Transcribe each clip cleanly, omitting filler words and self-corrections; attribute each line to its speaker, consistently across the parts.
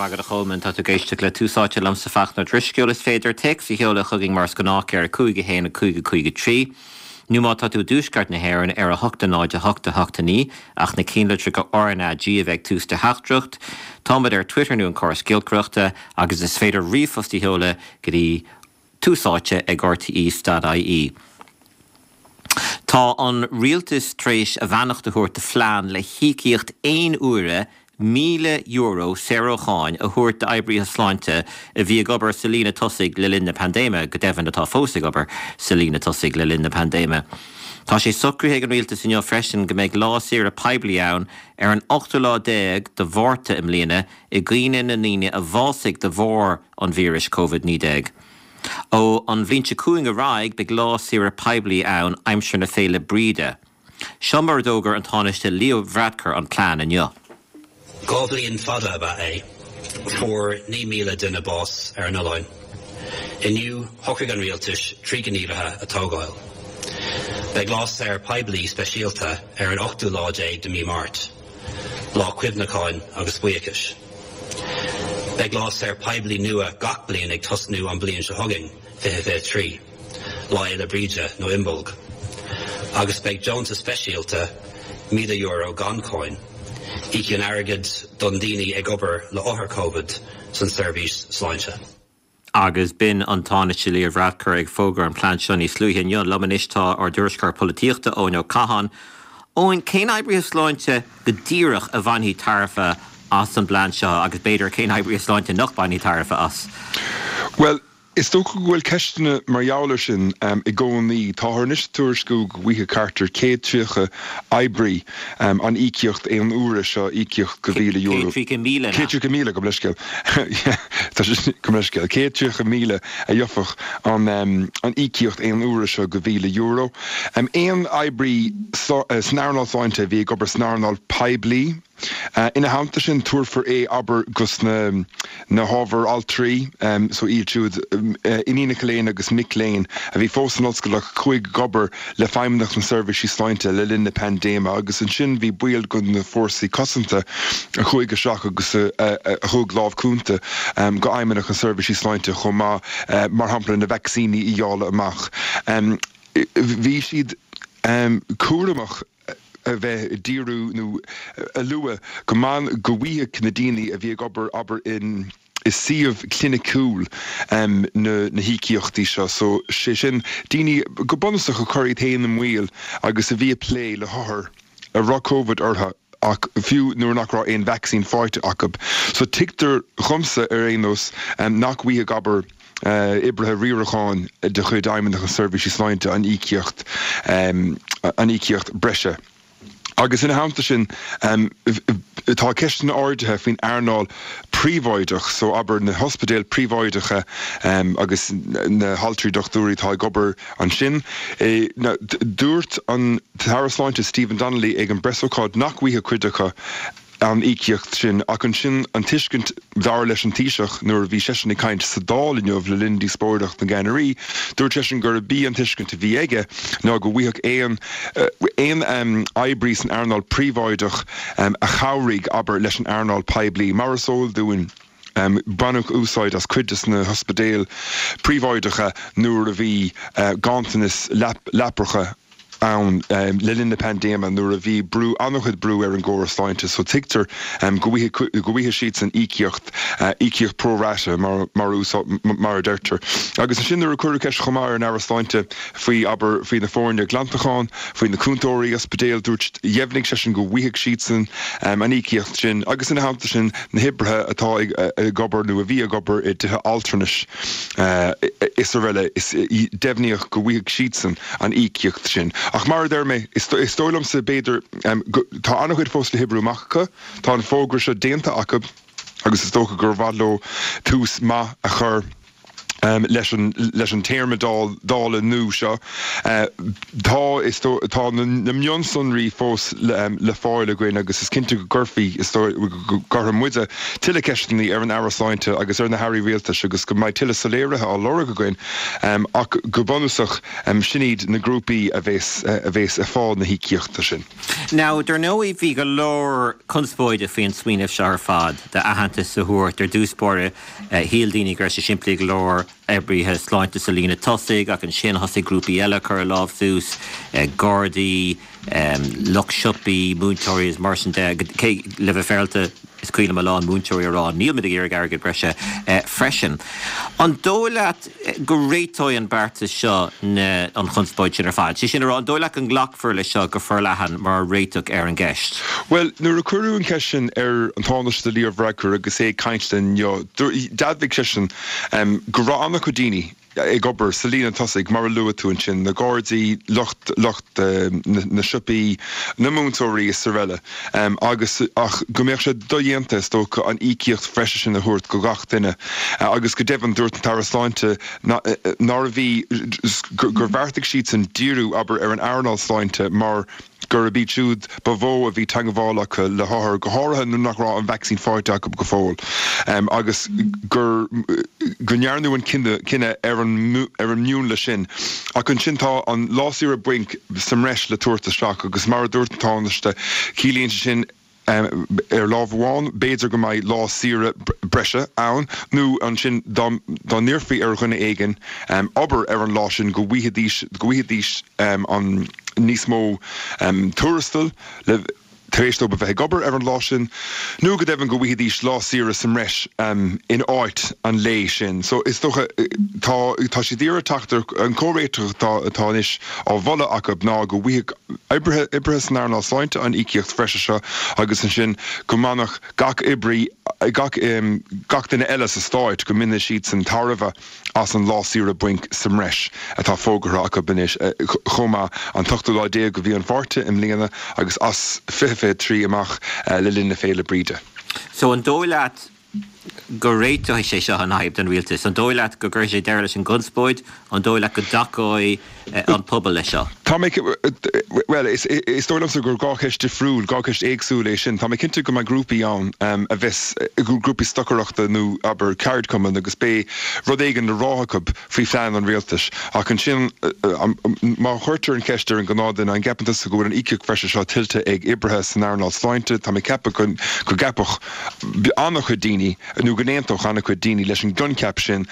Speaker 1: raibh maith agat a Cholmáin. Tá tú ag éisteacht le Tús Áite liomsa Fachtna Ó Drisceoil. Is féidir téacs a sheoladh chugainn mar is gnách ar 5 1 5 5 3 nó má tá tú i dtuaisceart na hÉireann ar 8 0 8 8 9 ach na cinnlitreacha RnaG a bheith ag tús do theachtaireacht. Táimid ar Twitter nó an córas giolcaireachta agus is féidir ríomhphost a sheoladh go dtí Tús Áite ag rte.ie. Tá an Rialtas tar éis a bheannacht a thabhairt do phlean le híocaíocht aon uaire €1,000 saor ó cháin a thabhairt d'oibrithe sláinte a bhí ag obair sa líne tosaigh le linn na paindéime, go deimhin atá fós ag obair sa líne tosaigh le linn na paindéime. Tá sé socraithe ag an Rialtas inniu freisin go mbeidh lá saoire poiblí ann ar an ochtú lá déag de Mhárta i mbliana i gcuimhne na ndaoine a bhásaigh de bharr an víris Covid-19. Ó an bhliain seo chugainn ar aghaidh beidh lá saoire poiblí ann aimsir na Féile Bríde. Seo mar a d'fhógair an Tánaiste Leo Varadkar an plean inniu.
Speaker 2: 2 bhliain fada ab ea é. Fuair 9,000 duine bás ar an oileán. Inniu, shocraigh an rialtais 3 gníomhartha a tógáil. Beidh lá saor poiblí speisialta ar an ochtú lá déag de mí Máirt, lá cuimhneacháin agus buíochais. Beidh lá saor poiblí nua gach bliain ag tosnú an bliain seo chugainn, 2023, Lá Fhéile Bríde nó Imbolg. Agus beidh deontas speisialta, €1,000 gan cháin, íocaíocht airgid don daoine ag obair le othair Covid san seirbhís sláinte.
Speaker 1: Agus b'in an Tánaiste Leo Varadkar ag fógairt an plean seo níos luaithe inniu. Liom anois tá ár dtuairisceoir polaitíochta, Eoin Ó Catháin. Eoin, cén oibrithe sláinte go díreach a bhainfidh tairbhe as an bplean seo agus b'fhéidir cén oibrithe sláinte nach mbainfidh tairbhe as?
Speaker 3: Bhuel, is dócha go bhfuil ceisteanna mar gheall air sin i gcónaí. Táthar anois ag tuairisciú go bhfaighidh thart ar 130 oibrí an íocaíocht aon uaire seo, íocaíocht go €1,000.
Speaker 1: 130,000,
Speaker 3: 130,000, gabh mo leithscéal. Tá sé, gabh mo leithscéal. 130,000 a gheobhadh an íocaíocht aon uaire seo go €1,000. Aon oibrí san earnáil sláinte a bhí ag obair san earnáil poiblí, Ina theannta sin, tabharfar é, abair, dos na na hábhair altraí, so iad siúd, iníonacha léinn agus mic léinn a bhí fós san ollscoil ach a chuaigh ag obair le Feidhmeannacht na Seirbhísí Sláinte le linn na paindéime agus ansin bhí baill de na fórsaí cosanta a chuaigh isteach agus a thug lámh cúnta go Fheidhmeannacht na Seirbhísí Sláinte chomh maith, mar shampla na vacsaíní a dháileadh amach. Bhí siad cúramach. a bheith ag díriú nó a lua go mban go bhfaigheadh na daoine a bhí ag obair abair in i suíomh cliniciúil na na híocaíochtaí seo so sé sin daoine go bunúsach a chuir iad féin i mbaol agus a bhí ag plé le hothair a raibh Covid orthu ach fiú nuair nach raibh aon vacsaín faighte acu. So tuigtear dhomsa ar aon nós nach bhfaighidh abair oibrithe riaracháin de chuid Fheidhmeannacht na Seirbhísí Sláinte an íocaíocht an íocaíocht breise. Agus ina theannta sin, tá ceisteanna ardaithe faoin earnáil phríobháideach, so abair na hospidéil phríobháideacha agus na haltraí dochtúirí atá ag obair ansin. Dúirt an tAire Sláinte Stephen Donnelly ag an bpreasócáid nach bhfaighidh cuid acu an íocaíocht sin, ach ansin an tuiscint, dar leis an Taoiseach nuair a bhí seisean ag caint sa Dáil inniu le linn díospóireacht na gceannairí, dúirt seisean gurb í an tuiscint a bhí aige ná go bhfaigheadh aon aon oibrí san earnáil phríobháideach a chabhraigh, abair, leis an earnáil poiblí. Mar is eol dúinn, baineadh úsáid as cuid de na hospidéil phríobháideacha nuair a bhí ganntanas leapacha ann le linn na paindéime nuair a bhí brú, an-chuid brú ar an gcóras sláinte so tuigtear go bhfaighidh, go bhfaighidh siadsan íocaíocht, íocaíocht pro rata mar, mar mar a deirtear. Agus ansin nuair a cuireadh ceist chomh maith ar an Aire Sláinte faoi, abair, faoi na foirne glantacháin, faoi na cúntóirí ospidéil, dúirt, dheimhnigh seisean go bhfaighidh siadsan an íocaíocht sin agus ina theannta sin na hoibrithe atá ag, ag obair nó a bhí ag obair i dtithe altranais is araile, is deimhníodh go bhfaighidh siadsan an íocaíocht sin. Ach mar a deir mé, is dóigh liomsa, b'fhéidir, go, tá an-chuid fós le hoibriú amach acu. Tá an fógra seo déanta acu agus is dócha gur mhaith leo tús maith a chur. Leis an leis an téarma Dála nua seo, tá is tá na mionsonraí fós le fáil againn agus is cinnte go gcuirfí, is dóigh, go gcuirfidh muide tuilleadh ceisteanna ar an Aire Sláinte agus ar na hAirí Rialtais agus go mbeidh tuilleadh soiléirithe á lorg againn ach go bunúsach sin iad na grúpaí a bheas a bheas ag fáil na híocaíochta sin.
Speaker 1: Now, dar ndóigh bhí go leor conspóide faoin smaoineamh seo ar fad d'aitheantas a thabhairt ar dtús báire Shíl daoine go raibh sé simplí go leor, oibrithe sláinte sa líne tosaigh, ach ansin thosaigh grúpaí eile ag cur a lámh suas, gardaí, lucht siopaí, múinteoirí is mar sin de. Cé, le bheith féaráilte, is cuimhin liom a lán múinteoirí ag rá níl muid ag iarraidh airgead breise freisin. An dóigh leat go réiteoidh an beartas seo na, an chonspóid sin ar fad? Sé sin a rá, an dóigh leat go nglacfar leis seo go forleathan mar réiteach ar an gceist?
Speaker 3: Bhuel, nuair a cuireadh an cheist sin ar an Tánaiste Leo Varadkar agus é ag caint linn inniu, d'admhaigh seisean go raibh an-chuid daoine ag obair sa líne tosaigh, mar a luaigh tú ansin, na Gardaí, lucht lucht na siopaí, na múinteoirí is araile, agus ach go mbeadh sé dodhéanta, is dócha, an íocaíocht bhreise sin a thabhairt go gach duine. Agus go deimhin, dúirt an tAire Sláinte nárbh í, gur bheartaigh siadsan díriú, abair, ar an earnáil sláinte mar gurb iad siúd ba mhó a bhí teagmháil acu le hothair, go háirithe nuair nach raibh an vacsaín faighte acu go fóill, agus gur go ndearnadh an cinneadh ar an ar an mhion sin. Ach ansin tá an lá saoire bainc sa mbreis le tabhairt isteach agus mar a dúirt an Tánaiste, ciallaíonn sé sin, Ar lámh amháin, b'fhéidir go mbeidh lá saoire breise ann, nó ansin dá n-iarrfaí ar dhuine éigin obair ar an lá sin go bhfaighidís, go bhfaighidís an níos mó tuarastail le tar éis dóibh a bheith ag obair ar an lá sin, nó go deimhin go bhfaighidís lá saoire sa mbreis in áit an lae sin. So is dócha, tá, tá siad ag iarraidh teacht ar an comhréiteach atá, atá anois á mholadh acu ná go bhfaighidh oibrithe, oibrithe san earnáil sláinte an íocaíocht bhreise seo agus ansin go mbainfeadh gach oibrí, gach, gach duine eile sa stát, go mbainfeadh siadsan tairbhe as an lá saoire bainc sa mbreis atá fógartha acu anois chomh maith, an t-ochtú lá déag de mhí an Mhárta i mbliana agus as 2023 amach le linn na Féile Bríde.
Speaker 1: So an dóigh leat go réiteoidh sé seo an fhadhb don rialtas? An dóigh leat go gcuirfidh sé deireadh leis an gconspóid? An dóigh leat go dtacóidh an pobal leis seo?
Speaker 3: Tá mé, bhuel, is dóigh liomsa gur 2 cheist difriúil, 2 cheist éagsúil é sin. Tá mé cinnte go mbeidh grúpaí ann a bheas, grúpaí stocaireachta nó, abair, ceardchumainn agus beidh rud éigin le rá acu faoi phlean an rialtais. Ach ansin, má chuirtear an cheist ar an ghnáthduine, an gceapann tusa go bhfuil an íocaíocht bhreise seo tuillte ag oibrithe san earnáil sláinte, tá mé ag ceapadh go gceapfadh an-chuid daoine, nó go n-aontódh an-chuid daoine leis an gcoincheap sin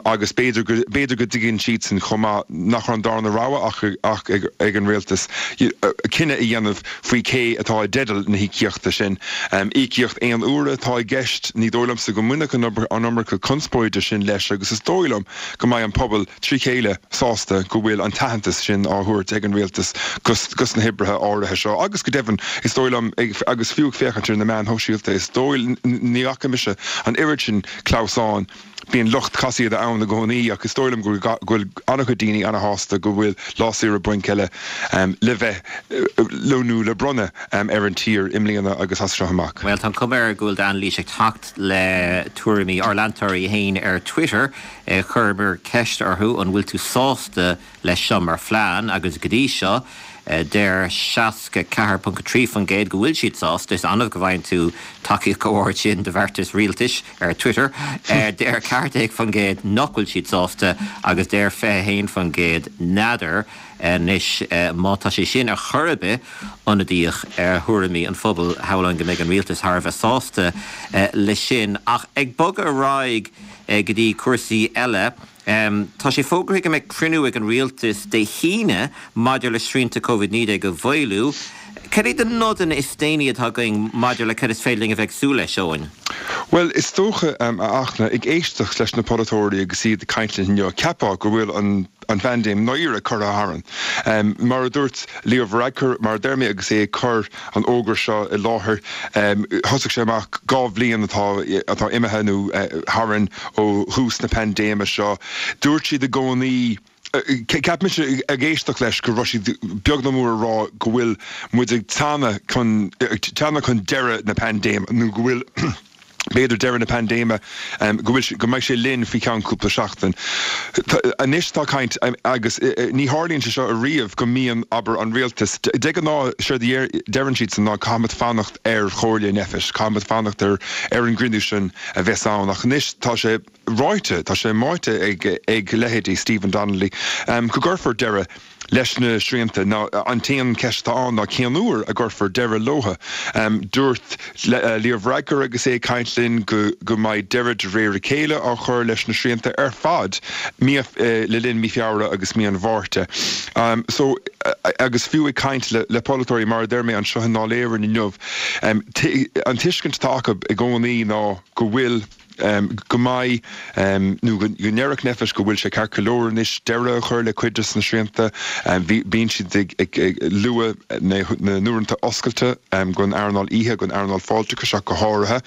Speaker 3: agus b'fhéidir go, b'fhéidir go dtuigeann siadsan chomh maith nach raibh an darna rogha ach, ach ag an rialtas cinneadh a dhéanamh faoi cé atá i dteideal na híocaíochta sin. Íocaíocht aon uaire atá i gceist, ní dóigh liomsa go mbainfeadh an iomarca conspóide sin leis agus is dóigh liom go mbeidh an pobal trí chéile sásta go bhfuil an t-aitheantas sin á thabhairt ag an rialtas dos na hoibrithe áirithe seo agus go deimhin is dóigh liom agus fiú ag féachaint ar na meáin shóisialta is dóigh ní fhaca mise an oiread sin clamhsáin Bíonn lucht casaoide ann i gcónaí ach is dóigh liom go bhfuil an-chuid daoine an-shásta go bhfuil lá saoire bainc eile le bheith nó le bronnadh ar an tír i mbliana agus as seo amach.
Speaker 1: Bhuel, tá an chuma air go bhfuil d'anailís ag teacht le tuairimí ár leantóirí féin ar Twitter. Chuireamar ceist orthu an bhfuil tú sásta leis seo mar phlean agus go dtí seo deir 64.3% go bhfuil siad sásta. Is annamh go bhfaigheann tú tacaíocht chomh hard sin do bheartas rialtais ar Twitter. Deir 14% nach bhfuil siad sásta agus deir 21% n'fheadar. Anois má tá sé sin ar chor ar bith ionadaíoch ar thuairimí an phobail, shamhlóinn go mbeidh an rialtas thar a bheith sásta leis sin. Ach ag bogadh ar aghaidh go dtí cúrsaí eile, Tá sé fógartha go mbeidh cruinniú ag an rialtas Dé hAoine maidir le srianta Covid-19 a mhaolú. Cad iad na nodanna is déanaí atá againn maidir le cad is féidir linn a bheith ag súil leis, Eoin?
Speaker 3: Bhuel, is dócha, a Fhachtna, ag éisteacht leis na polaiteoirí agus iad ag caint linn inniu, cheapfá go bhfuil an an phaindéim ndáiríre curtha tharainn. Mar a dúirt Leo Varadkar, mar a deir mé, agus é ag cur an fhógra seo i láthair. Thosaigh sé amach 2 bhliain atá atá imithe nó tharainn ó thús na paindéime seo. Dúirt siad i gcónaí, cheap mise ag éisteacht leis go raibh siad beag nó mór ag rá go bhfuil muid ag teannadh chun teannadh chun deireadh na paindéime nó go bhfuil. B'fhéidir deireadh na paindéime, go bhfuil, go mbeidh sé linn faoi cheann cúpla seachtain. Anois tá caint, agus ní tharlaíonn sé seo ariamh, go mbíonn, abair, an rialtas, de ghnáth séard a deireann siadsan ná caithfimid fanacht ar chomhairle Nphet, caithfimid fanacht ar ar an gcruinniú sin a bheas ann. Ach anois tá sé ráite, tá sé maíte ag ag leithéidí Stephen Donnelly go gcuirfear deireadh leis na srianta. Now an t-aon cheist atá ann ná cén uair a gcuirfear deireadh leo. Dúirt Leo Varadkar agus é ag caint linn go go mbeidh deireadh de réir a chéile á chur leis na srianta ar fad mí le linn mí Feabhra agus mí an Mhárta. So agus fiú ag caint le le polaiteoirí mar a deir mé anseo i nDáil Éireann inniu an tuiscint atá acu i gcónaí ná go bhfuil go mbeidh, nó go ndéarfadh Nphet go bhfuil sé ceart go leor anois deireadh a chur le cuid de na srianta. Bíonn siad ag lua na n-uaireanta oscailte don earnáil oíche, don earnáil fáilteachais ach go háirithe.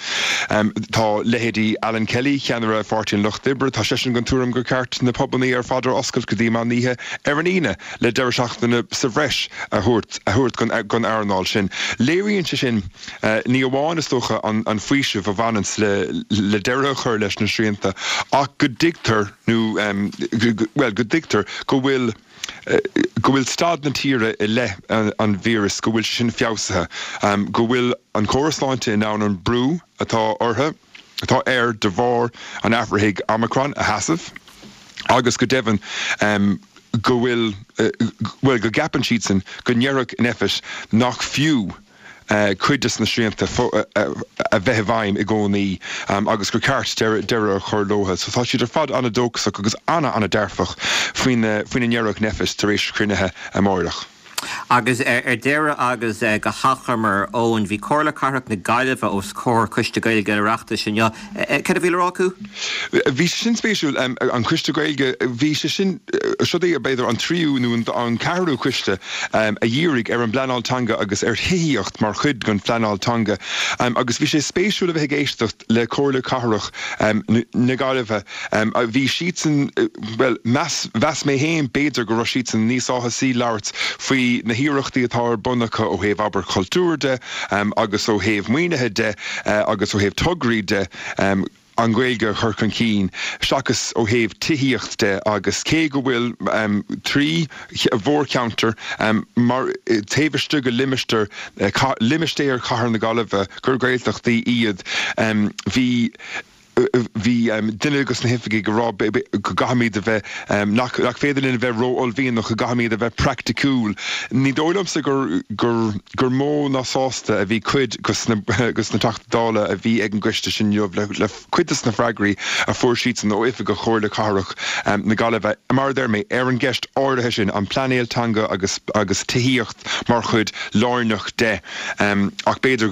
Speaker 3: Tá leithéidí Alan Kelly, ceannaire Pháirtí an Lucht Oibre, tá seisean den tuairim gur ceart na pubannaí ar fad a oscailt go dtí meán oíche ar an Aoine le deireadh seachtaine sa bhreis a thabhairt don earnáil sin. Léiríonn sé sin. Ní amháin, is dócha, an faoiseamh a bhaineanns le deireadh a chur leis na srianta ach go dtuigtear nó, bhuel, go dtuigtear go bhfuil, go bhfuil staid na tíre i leith an víris, go bhfuil sé sin feabhsaithe, go bhfuil an córas sláinte in ann an brú atá orthu, atá air de bharr an athraithigh Omicron a sheasamh agus go deimhin go bhfuil, bhuel, go gceapann siadsan go ndéarfadh Nphet nach fiú cuid de na srianta a bheith i bhfeidhm i gcónaí agus gur ceart deireadh a chur leo. So tá siad ar fad an-dóchasach agus an-an-dearfach faoina ndéarfadh Nphet tar éis cruinnithe amáireach.
Speaker 1: Agus ar deireadh agus go hachomair, Eoin, bhí Comhairle Cathrach na Gaillimhe os comhair Coiste Gaeilge an Oireachtais inniu. Cad a bhí le rá acu?
Speaker 3: Bhí sé sin spéisiúil, an Coiste Gaeilge, bhí sé sin, siod é b'fhéidir an tríú nó an ceathrú coiste a dhírigh ar an bpleanáil teanga agus ar thithíocht mar chuid den phleanáil teanga agus bhí sé spéisiúil a bheith ag éisteacht le Comhairle Cathrach na Gaillimhe. Bhí siadsan, bhuel, mheas, mheas mé féin b'fhéidir go raibh siadsan níos áthasaí labhairt faoi na hiarrachtaí atá ar bun acu ó thaobh abair cultúir de agus ó thaobh maoinithe de agus ó thaobh tograí de an Ghaeilge a chur chun cinn seachas ó thaobh tithíocht de agus cé go bhfuil 3 mhórcheantar mar taobh istigh de limistéar limistéar Chathair na Gaillimhe gur Gaeltachtaí iad bhí Bhí duine de na hoifigigh ag rá go gcaithfimid a bheith, nach féidir linn a bheith ró-uaillmhianach, go gcaithfimid a bheith praiticiúil. Ní dóigh liomsa gur gur mó ná sásta a bhí cuid de na Teachtaí Dála a bhí ag an gcoiste sin inniu le cuid de na freagraí a fuair siadsan ó oifigigh Chomhairle Cathrach na Gaillimhe, mar a deir mé, ar an gceist áirithe sin, an pleanáil teanga agus agus tithíocht mar chuid lárnach de. Ach b'fhéidir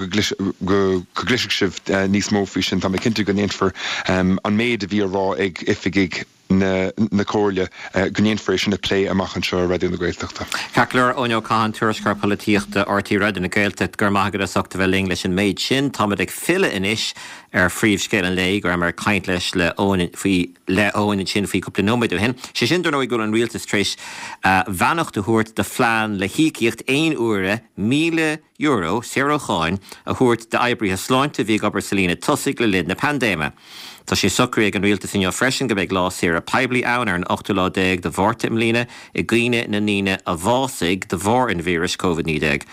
Speaker 3: go gcloisfidh sibh níos mó faoi sin. Tá mé cinnte go ndéanfar an méid a bhí á rá ag oifigigh na Comhairle, go ndéanfar é sin a phlé amach anseo ar Raidió na Gaeltachta.
Speaker 1: Ceart go leor, Eoin Ó Catháin, Tuairisceoir Polaitíochta RTÉ Raidió na Gaeltachta, go raibh maith agat as ucht a bheith linn leis an méid sin. Táimid ag filleadh anois ar phríomhscéal an lae, go rabhamar ag caint leis le Eoin faoi le Eoin ansin faoi cúpla nóiméad ó shin. Sé sin, dar ndóigh, go bhfuil an rialtas tar éis beannacht a thabhairt do phlean le híocaíocht aon uaire €1,000, saor ó cháin, a thabhairt d'oibrithe sláinte a bhí ag obair sa líne tosaigh le linn na paindéime. Tá sé socraithe ag an rialtas inniu freisin go mbeidh lá saoire poiblí ann ar an ochtú lá déag de Mhárta i mbliana i gcuimhne na ndaoine a bhásaigh de bharr an víris Covid-19.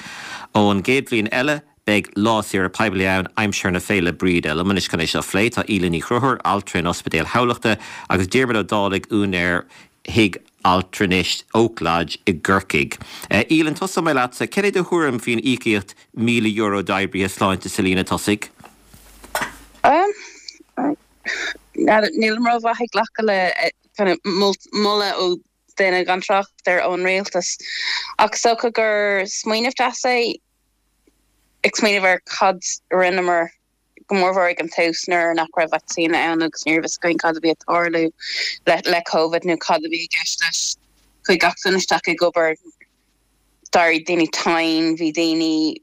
Speaker 1: Ón gcéad bhliain eile, Beidh lá saoire poiblí ann aimsir na Féile Bríde. Liom anois chun é seo a phlé tá Aoileann Ní Chonchúir, altra in Ospidéal Thamhlachta, agus Diarmuid Ó Dálaigh, úinéir Thigh Altranais Oak Lodge i gCorcaigh. Aoileann, tosóidh mé leatsa. Cad é do thuairim faoin íocaíocht €1,000 d'oibrithe sláinte sa líne
Speaker 4: tosaigh? Nílim rómhaith ag glacadh le kind of moladh ó duine gan trácht ar ón rialtas. Ach is dócha gur smaoineamh deas é. ag smaoineamh ar cad a rinneamar, go mórmhór ag an tús nuair nach raibh vacsaín ann agus ní raibh fhios againn cad a bhí ag tarlú le Covid nó cad a bhí i gceist leis. Chuaigh gach duine isteach ag obair, d'éirigh daoine tinn, bhí daoine,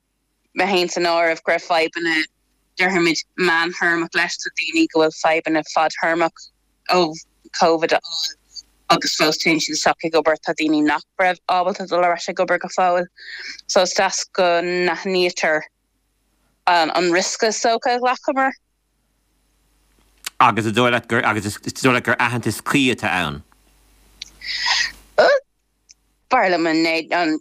Speaker 4: mé féin san áireamh, go raibh fadhbanna déarfaimid meántéarmach leis, tá daoine go bhfuil fadhbanna fadtéarmach ó Covid a fháil agus fós téann siad isteach ag obair, tá daoine nach raibh ábalta dul ar ais ag obair go fóill. So is deas go n-aithnítear an riosca is dócha a ghlacamar.
Speaker 1: Agus is dóigh leat gur agus is dóigh leat gur aitheantas cuí atá ann?
Speaker 4: B'fhearr liom an 19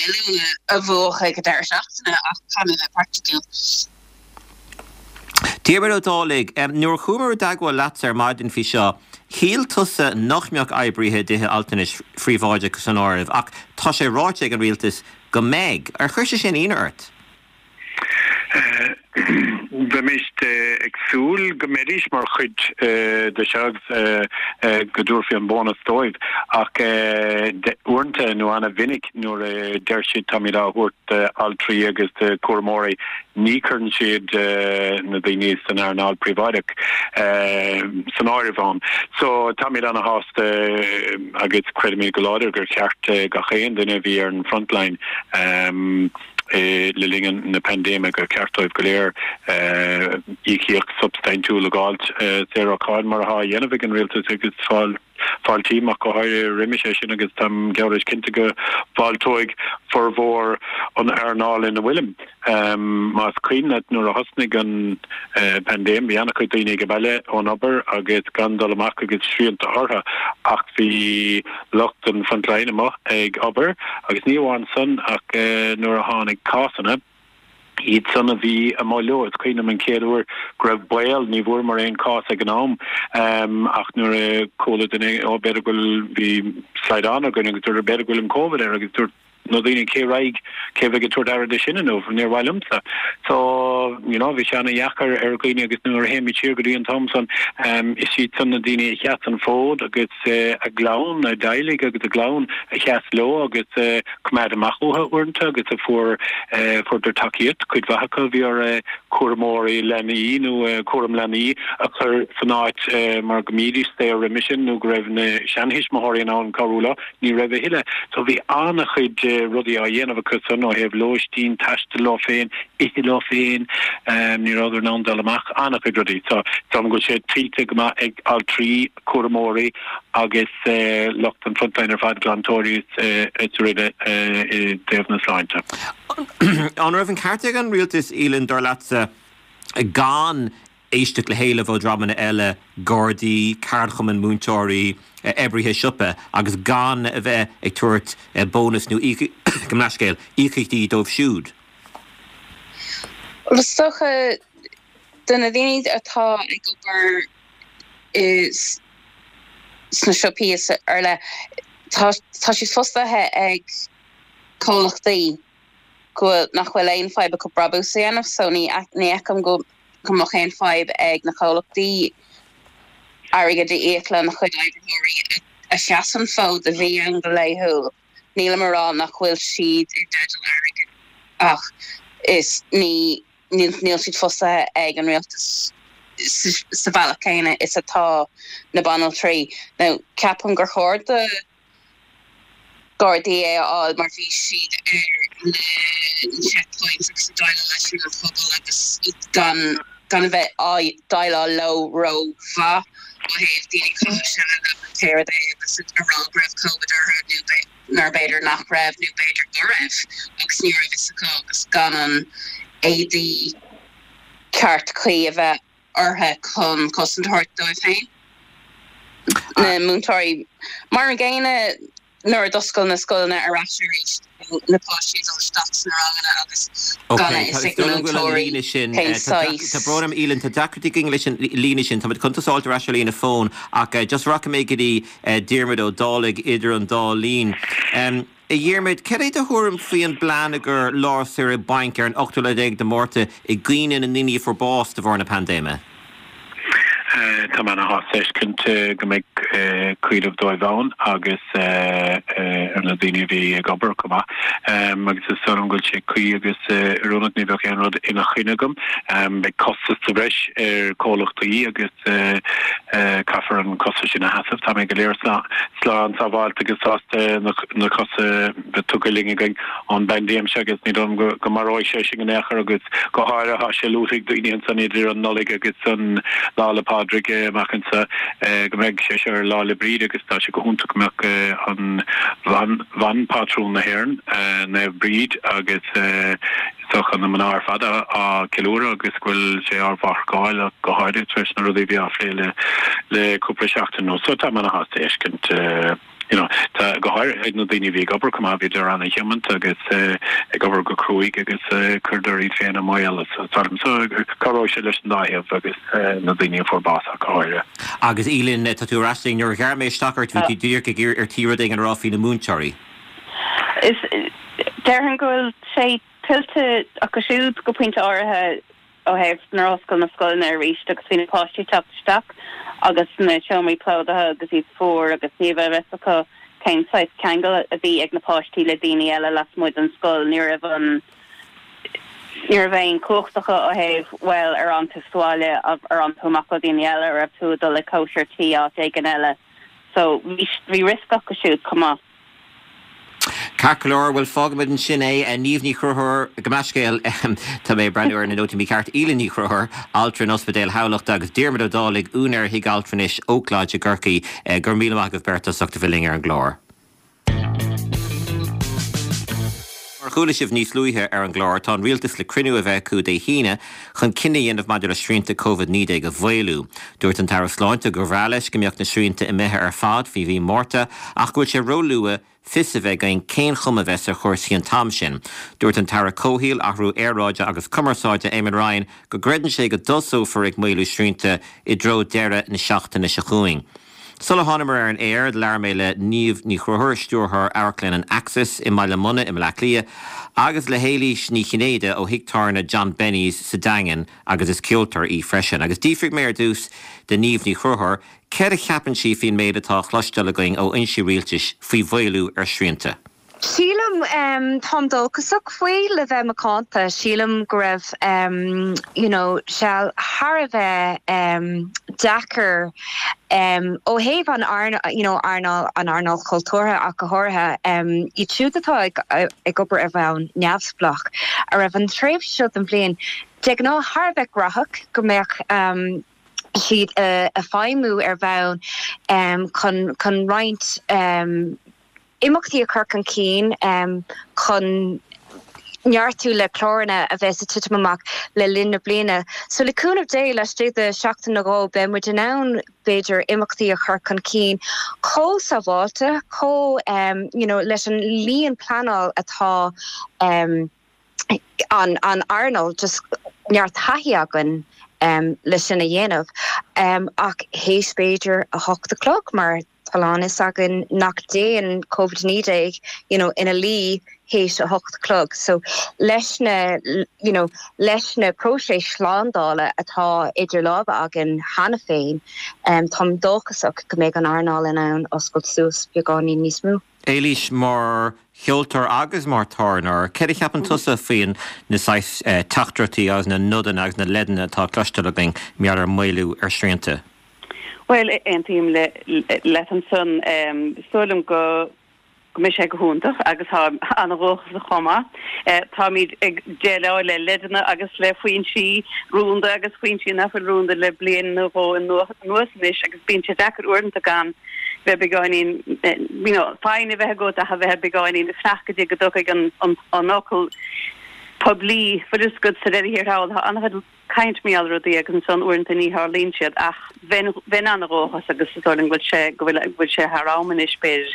Speaker 4: milliún a bhuachan ag an deireadh seachtaine ach caithfidh mé bheith praiticiúil.
Speaker 1: Diarmuid Ó Dálaigh, nuair a chuamar i dteagmháil leatsa ar maidin faoi seo, shíl tusa nach mbeadh oibrithe i dtithe altranais phríobháideacha san áireamh ach tá sé ráite ag an rialtas go mbeidh. Ar chuir sé sin ionadh ort?
Speaker 5: Bheimis ag súil go mbeidís mar chuid de seo agus go dtabharfaí an bónas dóibh ach uaireanta nó ana-mhinic nuair a deir siad táimid á thabhairt d'altraí agus do chúramóirí ní chuireann siad na daoine san earnáil príobháideach san áireamh ann. So táimid ana-shásta agus creidimid go láidir gur cheart gach aon duine a bhí ar an frontline le linn na paindéime gur ceart dóibh go léir íocaíocht shubstaintiúil a dh'fháilt saor ó cháin mar atá á dhéanamh ag an rialtas agus fáiltím ach go háirithe roimis é sin agus táim geall leis cinnte go bhfáilteoidh formhór an earnáil ina bhfuilim. Más cuimhin leat nuair a thosnaigh an paindéim bhí an-chuid daoine ag baile ón obair agus gan dul amach agus srianta orthu ach bhí lucht an frontline amuigh ag obair agus ní amháin san ach nuair a tháinig cásanna, iad san a bhí amuigh leo. Is cuimhin liom an chéad uair go raibh baol, ní bhfuaireamar aon chás ag an am ach nuair a chuala duine, ó b'fhéidir go bhfuil, bhí slaghdán againn agus dúirt b'fhéidir go bhfuil an Covid air agus dúirt na daoine cé raghaidh, cé bheidh ag tabhairt aire de sin inniu, níor mhaith liomsa. So, you know, bhí sé ana-dheacair ar dhaoine agus nuair a théimid siar go dtí an t-am san, is iad san na daoine a sheas an fód agus a gclann, a dteaghlaigh agus a gclann a sheas leo agus a choimeád amach uathu uaireanta agus a fuair, fuaireadar tacaíocht, cuid mhaith acu bhí orthu cúramóirí leanaí nó cúram leanaí a chur san áit mar go mbídís saor roimis sin nó go raibh na seanthuismitheoirí in ann cabhrú leo. Ní raibh a thuilleadh. So bhí an-chuid rudaí á dhéanamh acu san ó thaobh lóistín, taistil leo féin, ithe leo féin, ní rabhadar in ann dul amach, an-chuid rudaí. So is dóigh liom go bhfuil sé tuillte go maith ag altraí, cúramóirí agus lucht an frontline ar fad, glantóirí is araile i dtaobh na sláinte.
Speaker 1: An raibh an ceart ag an rialtas, Aoileann, dar leatsa, gan éisteacht le héilimh ó dhreamanna eile, Gardaí, ceardchumainn múinteoirí, oibrithe siopa, agus gan a bheith ag tabhairt bónas nó gabh mo leithscéal, íocaíochtaí dóibh siúd.
Speaker 4: Bhuel, is dócha, do na daoine atá ag obair i sna siopaí is araile, tá tá siad fostaithe ag comhlachtaí go bhfuil, nach bhfuil aon fadhb acu brabús a dhéanamh so ní ní fheicim go go mbeadh aon fadhb ag na comhlachtaí airgead a íoc lena chuid oibritheoirí a sheas an fód a bhí ann go laethúil. Nílim a rá nach bhfuil siad i dteideal airgid ach is ní níl siad fostaithe ag an rialtas sa bhealach céanna is atá na banaltraí. Now ceapaim gur chóir do Gardaí é a fháil mar bhí siad ar na checkpoints agus ag déileáil leis an phobal agus gan gan a bheith á déileáil leo ró-mhaith ó thaobh daoine ag caitheamh seile pé rud é agus a rá go raibh Covid orthu nó nuair b'fhéidir nach raibh nó b'fhéidir go raibh agus ní raibh fhios acu agus gan an éadaí ceart cuí a bheith orthu chun cosaint a thabhairt dóibh féin. Na múinteoirí, mar an gcéanna, nuair a d'oscail na scoileanna ar ais arís, na páistí ag dul isteach sna ranganna agus gan a fhios ag na múinteoirí cén saghas.
Speaker 1: Tá brón orm, Aoileann, tá deacrachtaí againn leis an líne sin. Táimid chun tusa a fháilt ar ais ar líne fóin ach just rachaidh mé go dtí Diarmuid Ó Dálaigh idir an dá linn. A Dhiarmuid, cad é do thuairim faoi an bplean i gcomhair lá saoire bainc ar an ochtú lá déag de Mhárta i gcuimhne na ndaoine a fuair bás de bharr na paindéime?
Speaker 5: Tá mé ana-shásta feiscint go mbeidh cuimhneamh dóibh ann agus ar na daoine a bhí ag obair chomh maith. Agus is dóigh liom go bhfuil sé cuí agus oiriúnach, ní bheadh aon rud ina choinne agam. Beidh costas sa bhreis ar chomhlachtaí agus caithfear an costas sin a sheasamh. Táimid go léir slán sábháilte agus sásta na cosa bheith tugtha linn againn ón bpaindéim seo agus ní dóigh liom go maróidh sé sinn in aon chor agus go háirithe tá sé luaite ag daoine ansan idir an Nollaig agus an Lá 'le Pádraig amach anso go mbeidh sé seo ar Lá 'le Bríde agus tá sé go hiontach go mbeadh an bhan, bhanphátrún na hÉireann, Naomh Bríd agus is dócha an. na mná ar fad á ceiliúradh agus go bhfuil sé ár mhaireachtáil ach go háirithe tar éis na rudaí a bhí á phlé le le cúpla seachtain anuas. So tá mé ana-shásta a fheiscint you know, tá go háirithe na daoine a bhí ag obair chomh maith, bhíodar ana-thiomanta agus ag obair go cruaidh agus chuireadar iad féin i mbaol so cabhróidh sé leis an dá thaobh agus na daoine a fuair bás ach go háirithe.
Speaker 1: Agus Aoileann, tá tú ar ais linn, nuair a ghearr mé isteach ort bhí tú díreach ag ar tí rud éigin a rá faoi na múinteoirí.
Speaker 4: Is déarfainn go bhfuil sé tuillte acu siúd go pointe áirithe ó thaobh nuair a oscail na scoileanna arís agus bhí na páistí ag teacht isteach agus na seomraí plódaithe agus iad fuar agus ní raibh a fhios acu cén saghas ceangal a bhí ag na páistí le daoine eile lasmuigh den scoil. Ní raibh an ní raibh aon chumhacht acu ó thaobh bhuel ar fhan tú sa bhaile ar fhan tú amach le daoine eile ar raibh tú ag dul ag cóisir tí áit éigin eile. So bhí bhí riosca acu siúd chomh maith.
Speaker 1: Ceart go leor, bhuel fágfaimid ansin é. Niamh Ní Chonchúir, gabh mo leithscéal, tá mé ag breathnú ar na nótaí mícheart, Aoileann Ní Chonchúir, altra in Ospidéal Thamhlachta agus Diarmuid Ó Dálaigh, úinéir Thigh Altranais Oak Lodge i gCorcaigh. Go raibh míle maith agaibh beirt as ucht a bheith linn ar an gclár. Mar a chuala sibh níos luaithe ar an gclár, tá an rialtas le cruinniú a bheith acu Dé hAoine chun cinneadh a dhéanamh maidir le srianta Covid-19 a mhaolú. Dúirt an tAire Sláinte gur bhreá leis go mbeadh na srianta imithe ar fad faoi mhí Márta ach go bhfuil sé róluath fios a bheith againn cén chuma a bheas ar chúrsaí an t-am sin. Dúirt an tAire Comhshaoil, Athrú Aeráide agus Cumarsáide, Eamon Ryan, go gcreideann sé go dtosófar ag maolú srianta i dtreo deireadh na seachtaine seo chugainn. Sula thánamar ar an aer, labhair mé le Niamh Ní Chonchúir, Stiúrthóir Amharclann an Axis i mBaile Munna i mBleá Cliath, agus le hÉilís Ní Chinnéide ó thigh tábhairne John Benny's sa Daingean agus is ceoltóir í freisin. Agus d'fhiafraigh mé ar dtús de Niamh Ní Chonchúir céard a cheapann sí faoin méid atá á chloisteáil againn ó fhoinsí rialtais faoi mhaolú ar shrianta.
Speaker 6: Sílim, táim dóchasach faoi, le bheith macánta. Sílim go raibh you know seal thar a bheith deacair ó thaobh an you know earnáil, an earnáil chultúrtha ach go háirithe, iad siúd atá ag ag obair ar bhonn neamhspleách, a raibh an tréimhse seo den bhliain de ghnáth thar a bheith graitheach, go mbeadh siad ag feidhmiú ar bhonn chun chun roinnt imeachtaí a chur chun cinn chun neartú le cláranna a bheas ag titim amach le linn na bliana. So le cúnamh Dé, laistigh de sheachtain nó dhó beidh muid in ann b'fhéidir imeachtaí a chur chun cinn chomh sábháilte, chomh you know leis an líon pleanáil atá an an earnáil, just neart taithí againn le sin a dhéanamh ach théis b'fhéidir 8 a chlog mar Tá a lán fhios againn nach dtéann Covid-19 you know ina luí théis 8 a chlog so leis na you know leis na próiseas slándála atá idir lámha againn cheana féin táim dóchasach go mbeidh an earnáil in ann oscailt suas beagáinín níos mó.
Speaker 1: Éilís, mar cheoltóir agus mar tábhairneoir, céard a cheapann tusa faoin na saghas teachtaireachtaí agus na nodanna agus na leideanna atá cloisteáil againn mar gheall ar maolú ar shrianta?
Speaker 7: Bhuel, aontaím leat ansan. Is dóigh liom go mbeidh sé go hiontach agus táim an-dhóchasach chomh maith. Táimid ag déileáil le leideanna agus le foinsí rúnda agus foinsí nach bhfuil rúnda le bliain nó dhó anuas anois agus bíonn sé deacair uaireanta gan bheith beagáinín, you know, foighne a bheith agat ach a bheith beagáinín ag fanacht go dtí go dtiocfaidh an fhocal poiblí. Bhfuil fhios agat sa deireadh thiar thall tá an-chuid caint mar gheall ar rudaí agus ansan uaireanta ní tharlaíonn siad ach bheinn bheinn an-dhóchasach agus is dóigh liom go bhfuil sé go bhfuil go bhfuil sé thar am anois b'fhéidir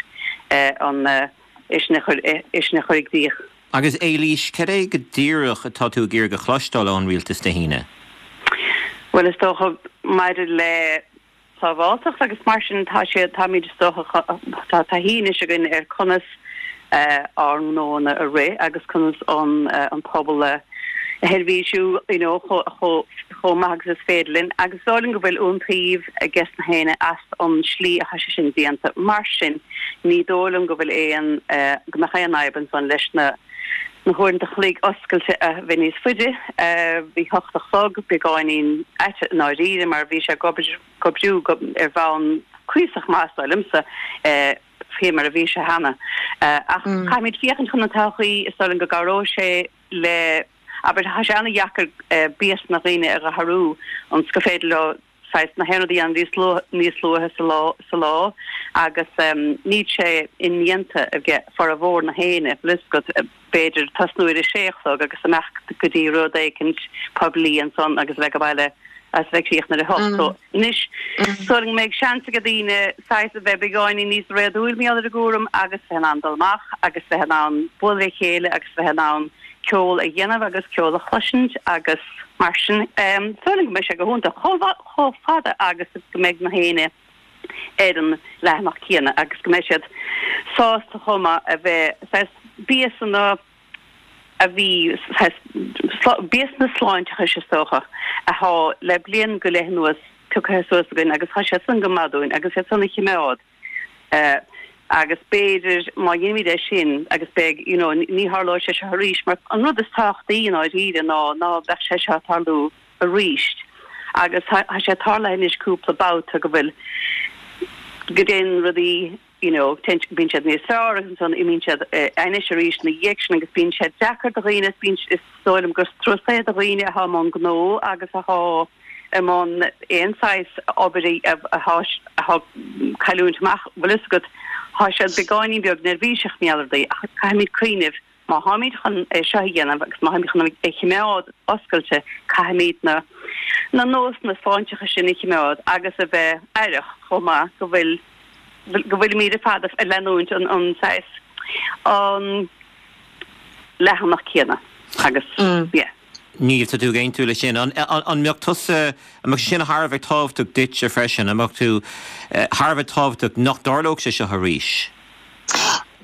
Speaker 7: an é sin a chur é sin a chur i gcrích.
Speaker 1: Agus Éilís, cad é go díreach atá tú ag iarraidh a chloisteáil ón rialtas Dé hAoine?
Speaker 7: Bhuel is dócha maidir le sábháilteacht agus mar sin tá sé, táimid is dócha, tá taithí anois againn ar conas ár ngnóanna a rith agus conas an an pobal a sheirbhísiú you know chomh maith agus is féidir linn agus is dóigh liom go bhfuil iontaoibh ages na héinne as an slí atá sé sin déanta. Mar sin ní dóigh liom go bhfuil aon, go mbeadh aon fhadhb ansan leis na na huaireanta chloig oscailte a bheith níos faide. Bhí hocht a chlog beagáinín ait i ndáiríre mar bhí sé ag obair, ag oibriú ar bhonn cuíosach maith is dóigh liomsa faoi mar a bhí sé cheana. Ach caithfimid féachaint chun an todhchaí, is dóigh liom go gcabhróidh sé le, abair, tá sé an-dheacair béasa na ndaoine a athrú ionas gur féidir leo. Saghas na haon rud a dhéanamh níos luaithe, níos luaithe sa lá, sa lá agus níl sé indéanta ag formhór na héinne, bhfuil fhios agat, b'fhéidir tosnú ar a sé a chlog agus imeacht go dtí rud éicint poiblí ansan agus a bheith ag baile agus a bheith ag críochnú ar a hocht. So anois is dóigh liom go mbeidh seans ag daoine saghas a bheith beagáinín níos réadúil mar gheall ar an gcúram agus bheith in ann dul amach agus bheith in ann bualadh le chéile agus bheith in ann ceol a dhéanamh agus ceol a chloisint agus mar sin. Is dóigh liom go mbeidh sé go hiontach chomh fada agus go mbeidh na héinne ar an leathanach céanna agus go mbeidh siad sásta chomh maith a bheith saghas béasanna a bhí saghas béasanna sláinteachais is dócha athá le bliain go leith anuas pioctha suas againn agus tá siad san go maith dúinn agus iad san a chimeád. Agus b'fhéidir má dheinimid é sin agus beidh, you know, ní tharlóidh sé seo arís mar an rud is tábhachtaí i ndáiríre ná ná beadh sé seo ag tarlú arís. Agus tá sé tarlaithe anois cúpla babhta go bhfuil, go dtéann rudaí, you know, téann, bíonn siad níos fearr agus ansan imíonn siad ainnis arís ina dhiaidh sin agus bíonn sé deacair do dhaoine, bíonn, is dóigh liom gur strus é do dhaoine athá i mbun gnó agus athá, i mbun aon saghas obair atá cailliúint amach, bhfuil fhios agat, tá siad beagáinín beag neirbhíseach mar gheall ar rudaí ach caithfimid cuimhneamh má tháimid chun é seo a dhéanamh agus má tháimid chun é chimeád oscailte caithfimid na na nósanna sláinteacha sin a chimeád agus a bheith aireach chomh maith go bhfuil go bhfuilimid ar fad ag leanúint an an saghas an leathanach céanna agus yeah.
Speaker 1: Niamh, tá tú ag aontú leis sin. An mbeadh tusa, an mbeadh sé sin thar a bheith tábhachtach duitse freisin? An mbeadh tú thar a bheith tábhachtach nach dtarlódh sé seo arís?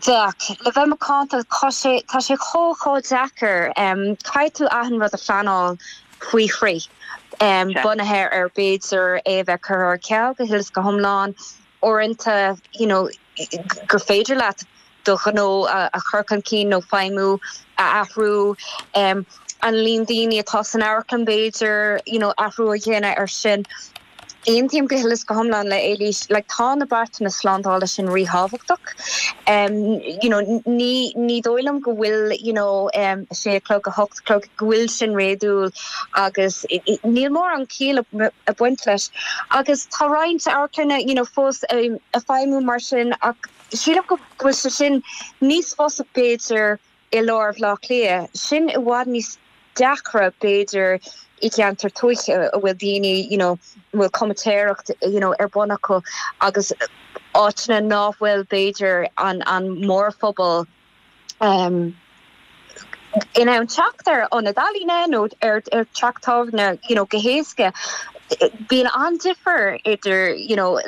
Speaker 6: Bheadh. Le bheith macánta, tá sé, tá sé chomh, chomh deacair. Caithfidh tú achan rud a phleanáil faoi thrí, bunaithe ar b'fhéidir é a bheith curtha ar ceal go huile is go hiomlán, uaireanta, you know, gur féidir leat do ghnó a chur chun cinn nó feidhmiú a athrú, an líon daoine atá san amharclann b'fhéidir, you know, athrú a dhéanamh ar sin. Aontaím go huile is go hiomlán le Éilís, like tá na beartanna slándála sin ríthábhachtach. You know, ní, ní dóigh liom go bhfuil, you know, a sé a chlog, a hocht a chlog, go bhfuil sin réadúil agus níl mórán ciall ag baint leis. Agus tá roinnt amharclanna, you know, fós ag feidhmiú mar sin ach, Sílim go bhfuil sé sin níos fusa b'fhéidir i lár Bhaile Átha Cliath. Sin i bhfad níos deacra b'fhéidir i gceantar tuaithe a bhfuil daoine you know a bhfuil comaitéireacht you know ar bun acu agus áiteanna ná fuil b'fhéidir an an mórphobal um in ann teacht ar ionad ealaíne nó ar teach tábhairne you know go héasca. Bíonn an-difear idir you know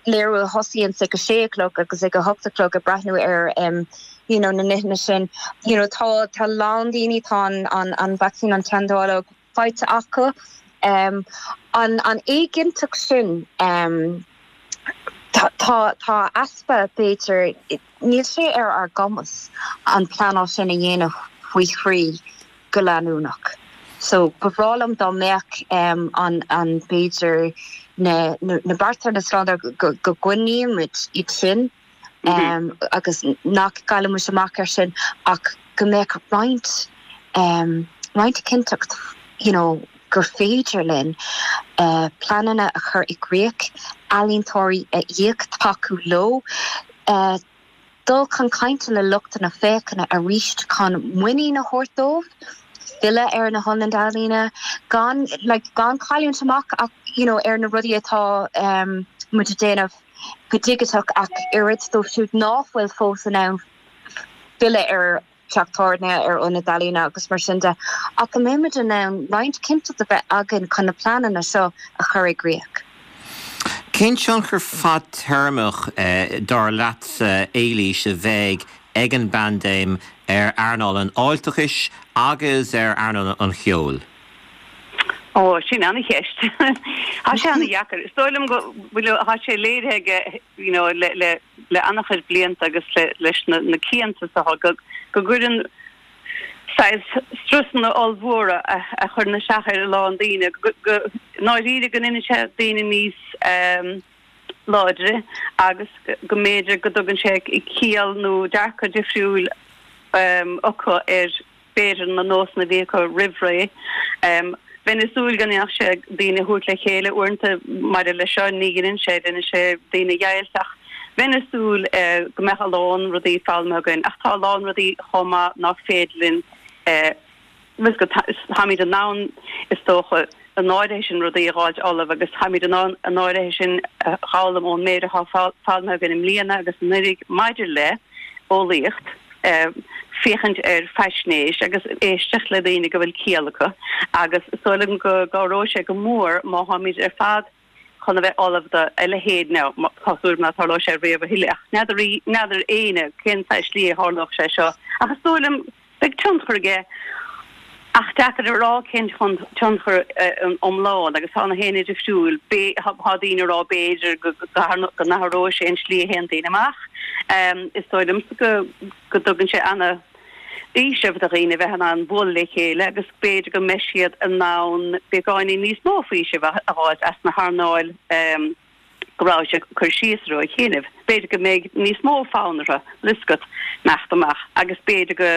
Speaker 6: léiriú a thosaíonns ag a sé a chlog agus ag a hocht a chlog ag breathnú ar um you know na nithe sin. You know tá tá a lán daoine tá an an an vacsaín an teanndáileog faighte acu. Um an an éiginnteacht sin um tá tá tá easpa b'fhéidir Níl sé ar ár gcumas an pleanáil sin a dhéanamh faoi thrí go leanúnach. So, ba bhreá liom dá mbeadh an, an, b'fhéidir na, na bearta na slándála go, go gcoinnímid iad sin agus nach gcaillfimid amach ar sin ach go mbeadh roinnt, roinnt cinnteacht, you know, gur féidir linn pleananna a chur i gcrích, ealaíontóirí a íoc, tacú leo, dul chun cainte le lucht na féachana arís chun muinín a thabhairt dóibh, filleadh ar na hionaid ealaíne, gan like gan cailliúint amach ach you know ar na rudaí atá muid ag déanamh go digiteach ach oiread dóibh siúd ná fuil fós in ann filleadh ar teach tábhairne, ar ionad ealaíne agus mar sin de, ach go mbeimid in ann roinnt cinnteacht a bheith againn chun na pleananna seo a chur i gcrích.
Speaker 1: Cén tionchar fadtéarmach, dar leatsa, Éilís, a bheidh ag an bpaindéim ar earnáil an fháilteachais agus ar earnáil an cheoil?
Speaker 7: Ó, sin an-cheist. Tá sé an-dheacair. Is dóigh liom go bhfuil, tá sé léirithe aige, you know, le, le, le an-chuid blianta agus le, leis na, na cianta is dócha go, go gcuireann saghas strusanna ollmhóra a, a chuireann isteach ar a lán daoine, go, go, i ndáiríre go ndéanann sé daoine níos ehm, láidre agus go mb'fhéidir go dtugann sé ciall nó dearcadh difriúil ehm, acu ar b'fhéidir na nósanna a bhí acu roimh ré. Bheinn ag súil go ndéanfadh sé daoine a thabhairt le chéile uaireanta maidir leis seo, ní dheineann sé, deineann sé daoine a dheighilt ach bheinn ag súil go mbeadh a lán rudaí foghlamtha againn ach tá a lán rudaí chomh maith nach féidir linn bhfuil go táimid in ann is dócha an áirithe sin rudaí a dh'fháilt ullamh agus táimid in ann an áirithe sin a dh'fhoghlaim ón méid atá foghlamtha againn i mbliana agus anuraidh maidir le eolaíocht. féachaint ar faisnéis agus éisteacht le daoine go bhfuil ciall acu agus is dóigh liom go gcabhróidh sé go mór má tháimid ar fad chun a bheith ullamh do a leithéid now tá súil agam ná tarlóidh sé riamh a thuilleadh ach n'fheadar n'fheadar éinne cén saghas slí a tharlódh sé seo ach is dóigh liom beidh tionchar aige Ach deacair a rá cén tionchar iomlán agus tá na héinne difriúil. Tá daoine ag rá b'fhéidir go n-athróidh sé an slí a théann daoine amach. Is dóigh liomsa go dtugann sé ana fhaoiseamh do dhaoine bheith in ann bualadh le chéile agus b'fhéidir go mbeidh siad in ann beagáinín níos mó faoisimh a dh'fháilt as na hearnáil. go raibh sé ag cur síos orthu a chinneadh. B'fhéidir go mbeidh níos mó fonn orthu bhfuil a fhios agat imeacht amach agus b'fhéidir go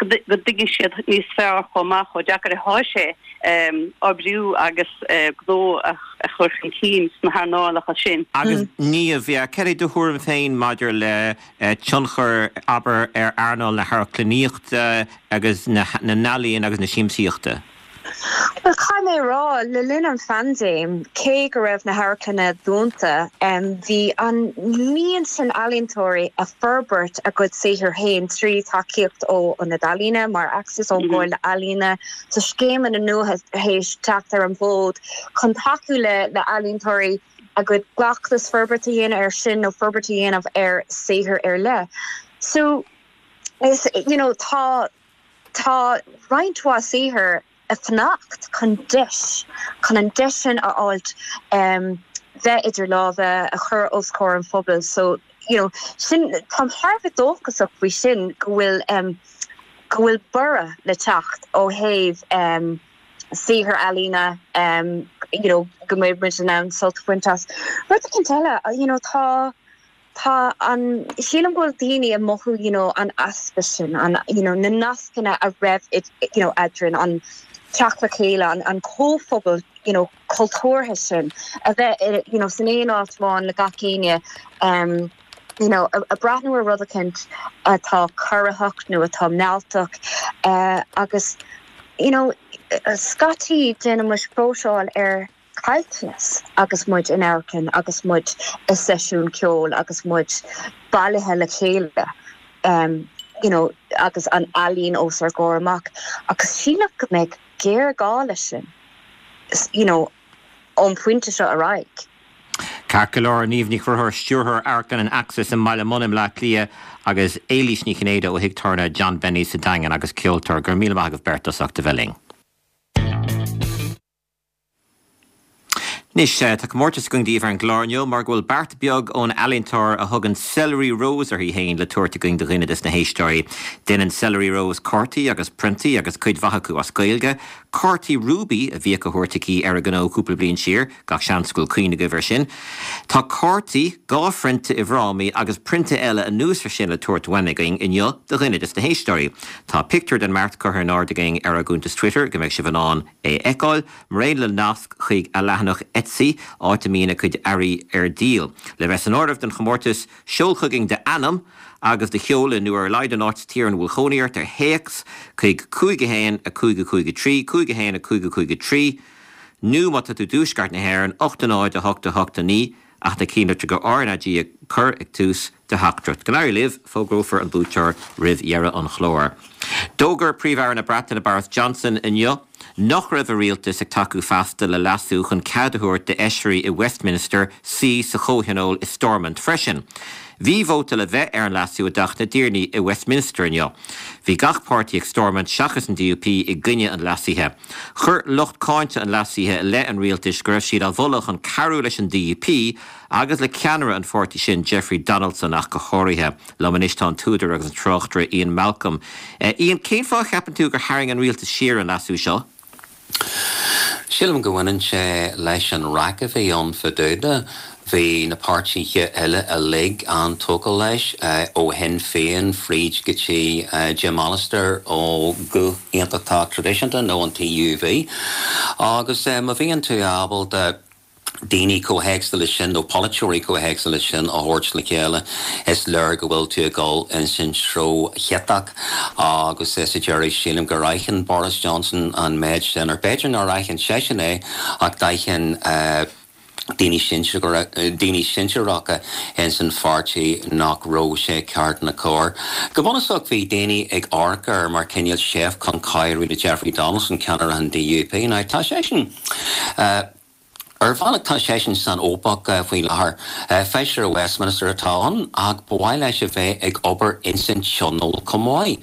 Speaker 7: go dtuigfidh siad níos fearr chomh maith chomh deacair atá sé oibriú agus gnó a chur chun cinn sna hearnálacha sin.
Speaker 1: Agus Niamh, yeah, cad é do thuairim féin maidir le tionchar, abair, ar earnáil na hamharclannaíochta agus na n-ealaíon agus na siamsaíochta?
Speaker 6: Bhuel, caithfidh mé a rá, le linn an phaindéim, cé go raibh na hamharclanna dúnta, bhí an líon sin ealaíontóirí ag forbairt a gcuid saothair féin trí tacaíocht ó Ionad Ealaíne mar Axis, ón gComhairle Ealaíona. Tá scéimeanna nua théis teacht ar an bhfód chun tacú le healaíontóirí a gcuid cleachtas forbairt a dhéanamh air sin nó forbairt a dhéanamh ar saothar ar leith. So, is, you know, tá. Tá roinnt mhaith saothar ag fanacht chun deis, chun an deis sin a fháilt bheith idir lámha, a chur os comhair an phobail. So, you know, sin, táim thar a bheith dóchasach faoi sin go bhfuil, go bhfuil borradh le teacht ó thaobh saothar ealaíne, you know, go mbeidh muid in ann sult a bhaint as. Rud éicint eile, you know, tá, Tá an, sílim go bhfuil daoine ag mothú you know an easpa sin, an you know na nascanna a raibh you know eadrainn, an teacht le chéile, an an comhphobal you know cultúrtha sin, a bheith you know san aon áit amháin le gach éinne um you know ag breathnú ar rud eicínt atá corraitheach nó atá mealltach uh agus you know scaití déanann muid próiseáil ar caillteanas agus muid in amharclann agus muid i seisiún ceoil agus muid bailithe le chéile you know agus an ealaín os ár gcomhair amach agus sílim go mbeidh géarghá leis sin you know ón phointe seo ar aghaidh.
Speaker 1: Ceart go leor, Niamh Ní Chonchúir, Stiúrthóir Amharclann an Axis i mBaile Munna i mBleá Cliath agus Éilís Ní Chinnéide ó Thigh Tábhairne John Benny sa Daingean agus ceoltóir. Go raibh míle maith agaibh beirt as ucht a bheith linn. Anois, tá comórtas againn daoibh ar an gclár inniu mar go bhfuil beart beag ón ealaíontóir a thugann Celery Rose uirthi féin le tabhairt againn do dhuine des na héisteoirí. Déanann Celery Rose cártaí agus priontaí agus cuid mhaith acu as Gaeilge. Cártaí Rúbaí a bhíodh á thabhairt aici ar a gnó cúpla bliain siar, gach seans go bhfuil cuimhne agaibh air sin. Tá cártaí, 2 phrionta i bhfrámaí agus prionta eile anuas ar sin le tabhairt uainn againn inniu do dhuine des na héisteoirí. Tá pictiúr den mbeart curtha in airde againn ar ár gcuntas Twitter go mbeidh sibh in ann é a fheiceáil, maraon le nasc chuig a leathanach Etsy, áit a mbíonn a cuid earraí ar díol. Le bheith san áireamh don chomórtas, seol chugainn d'ainm agus do sheoladh, nó ar a laghad an áit sa tír ina bhfuil cónaí ort, ar théacs chuig 5 1 5 5 3, 5 1 5 5 3, nó má tá tú i dtuaisceart na hÉireann, 8 0 8 8 9. Ach na cinnlitreacha RnaG a chur ag tús do theachtaireacht. Go n-éirí libh, fógrófar an buaiteoir roimh dheireadh an chláir. D'fhógair Príomh-Aire na Breataine Boris Johnson inniu nach raibh a rialtas ag tacú feasta le leasú chun cead a thabhairt d'fheisirí i Westminster suí sa chomhthionól i Stormont freisin. Bhí vóta le bheith ar an leasú i dTeach na dTiarnaí i Westminster inniu. Bhí gach páirtí ag Stormont seachas an DUP i gcoinne an leasaithe. Chuir lucht cáinte an leasaithe i leith an rialtais go raibh siad á mholadh chun cabhrú leis an DUP agus le ceannaire an pháirtí sin, Jeffrey Donaldson ach go háirithe. Liom anois tá an t-údar agus an tráchtaire Ian Malcolm. Ian, cén fáth a cheapann tú gur tharraing an rialtas siar an leasú seo?
Speaker 8: Sílim go mbaineann sé leis an raic a bhí ann fá dtaobh de. Bhí na páirtithe eile uilig an-tógtha leis, ó Shinn Féin fríd go dtí Jim Allister ó Ghuth Aontachtach Traidisiúnta nó an TUV. Agus má bhíonn tú ábalta daoine chomh héagsúil leis sin nó polaiteoirí chomh héagsúil leis sin a thabhairt le chéile, is léir go bhfuil tú ag dul ins an treo chiotach agus sa deireadh sílim gur aithin Boris Johnson an méid sin, or b'fhéidir nár aithin seisean é ach d'aithin daoine daoine sinsearacha ins an pháirtí nach raibh sé ceart ná cóir. Go bunúsach bhí daoine ag amharc air mar cineál seift chun cabhrú le Jeffrey Donaldson, ceannaire an DUP. Now tá seisean. Ar bhealach tá seisean san fhaopach faoi láthair. Feisire Westminster atá ann ach ba mhaith leis a bheith ag obair ins an Tionól chomh maith.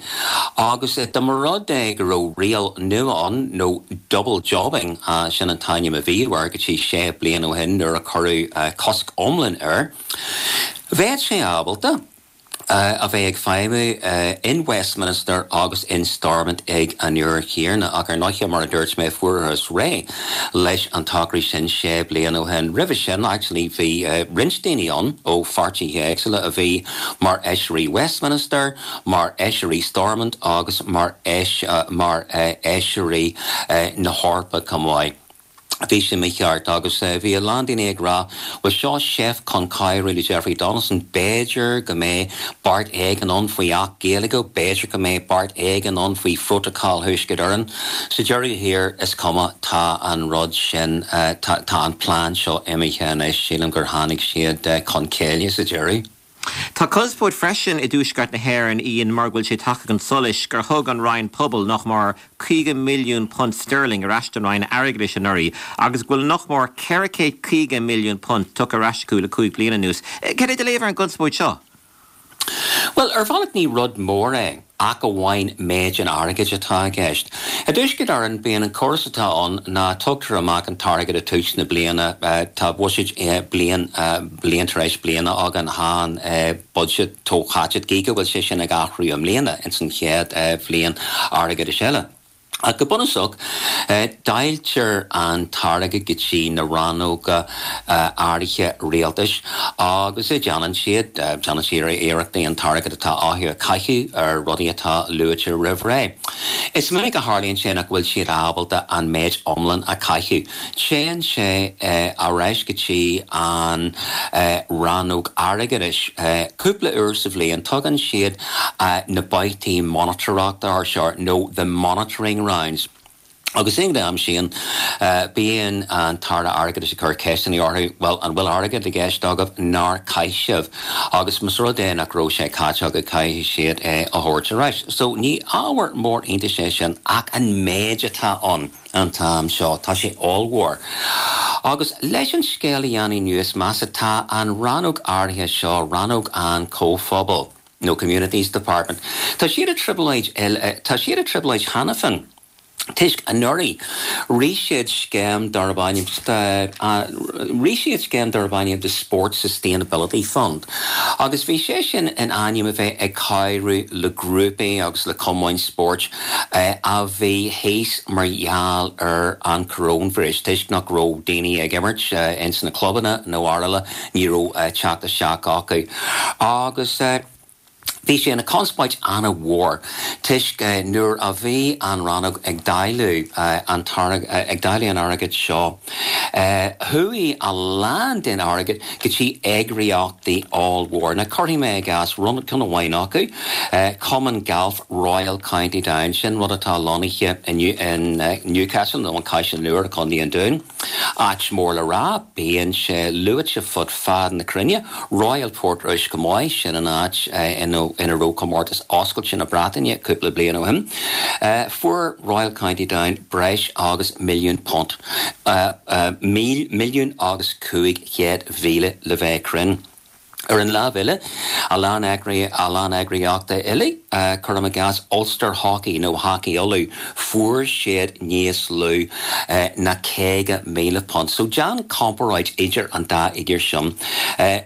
Speaker 8: Agus dá mba rud é go raibh riail nua ann, nó double jobbing, sin an t-ainm a bhíodh air go dtí sé bliana ó shin nuair a cuireadh cosc iomlán air, bheadh sé ábalta. a bheith ag feidhmiú in Westminster agus in Stormont ag an uair chéanna. Ach ar ndóighe, mar a dúirt mé, fuarthas réidh leis an togra sin sé bliana ó shin. Roimhe sin, actually, bhí roinnt daoine ann ó pháirtithe éagsúla a bhí mar fheisirí Westminster, mar fheisirí Stormont agus mar mar fheisirí na hEorpa chomh maith. Bhí sé mícheart agus bhí a lán daoine ag rá, bhuel seo seift chun cabhrú le Jeffrey Donaldson, b'fhéidir go mbeidh beart éigin ann faoi Acht Gaeilge, b'fhéidir go mbeidh beart éigin ann faoi Phrótacal Thuaisceart Éireann. Sa deireadh thiar, is cuma, tá an rud sin, tá an plean seo imithe anois, sílim gur tháinig siad chun céille sa deireadh.
Speaker 1: Tá conspóid freisin i dTuaisceart na hÉireann, Ian, mar go bhfuil sé tagtha chun solais gur thug an Roinn Pobal nach mór £50 milliún sterling ar ais don Roinn Airgeadais anuraidh agus go bhfuil nach mór £450 milliún tugtha ar ais acu le 5 bliana anuas. Cad é do léamh ar an gconspóid seo?
Speaker 8: Bhuel, ar bhealach ní rud mór é. ach amháin méid an airgid atá i gceist. I dTuaisceart Éireann, bíonn an córas atá ann ná tugtar amach an t-airgead i tús na bliana, tá buiséid bliain, bliain tar éis bliana againn, tá an buiséad comhtháite, gí go bhfuil sé sin ag athrú i mbliana ins an chéad bhliain airgeadais eile. Ach go bunúsach, dáiltear an t-airgead go dtí na rannóga áirithe rialtais agus déanann siad, déanann siad iarrachtaí an t-airgead atá acu a chaitheamh ar rudaí atá luaite roimh ré. Is minic a tharlaíonn sé nach bhfuil siad ábalta an méid iomlán a chaitheamh. Téann sé ar ais go dtí an rannóg airgeadais cúpla uair sa bhliain. Tugann siad na babhtaí monatóireachta air seo, nó the monitoring rounds. Agus ag an am sin, bíonn an tAire Airgeadais ag cur ceisteanna orthu, bhuel, an bhfuil airgead i gceist agaibh nár chaith sibh? Agus más rud é nach raibh sé caite acu, caithfidh siad é a thabhairt ar ais. So ní ábhar mór iontais é sin, ach an méid atá ann. an t-am seo. Tá sé ollmhór. Agus leis an scéal a dhéanamh níos measa, tá an rannóg áirithe seo, rannóg an Chomhphobail, nó Communities Department, tá siad i dtrioblóid, tá siad i dtrioblóid cheana féin toisc anuraidh rith siad scéim darb ainm, rith siad scéim darb ainm the Sports Sustainability Fund agus bhí sé sin in ainm a bheith ag cabhrú le grúpaí agus le cumainn spóirt a bhí thíos mar gheall ar an coróinvíreas, toisc nach raibh daoine ag imirt ins na clubanna nó araile, ní raibh teacht isteach acu. Agus bhí sé ina conspóid ana-mhór toisc nuair a bhí an rannóg ag dáileadh an ag dáileadh an airgid seo, chuaigh a lán den airgead go dtí eagraíochtaí ollmhór. Now cuirfidh mé i gcás ceann amháin acu, Cumann Gailf Royal County Down, sin rud atá lonnaithe in Newcastle nó an Caiseal Nua i gContae an Dúin. Áit mór le rá, bíonn sé luaite fud fad na cruinne. Royal Portrush chomh maith, sin an áit ina raibh Comórtas Oscailte na Breataine cúpla bliain ó shin. Fuair Royal County Down breis agus £1,000,000, £1,500,000 le bheith cruinn. Ar an lámh eile, a lán a lán eagraíochtaí eile, cuirim i gcás Ulster Hockey nó Hockey Uladh, fuair siad níos lú ná £50,000. So déan comparáid idir an dá fhigiúr sin,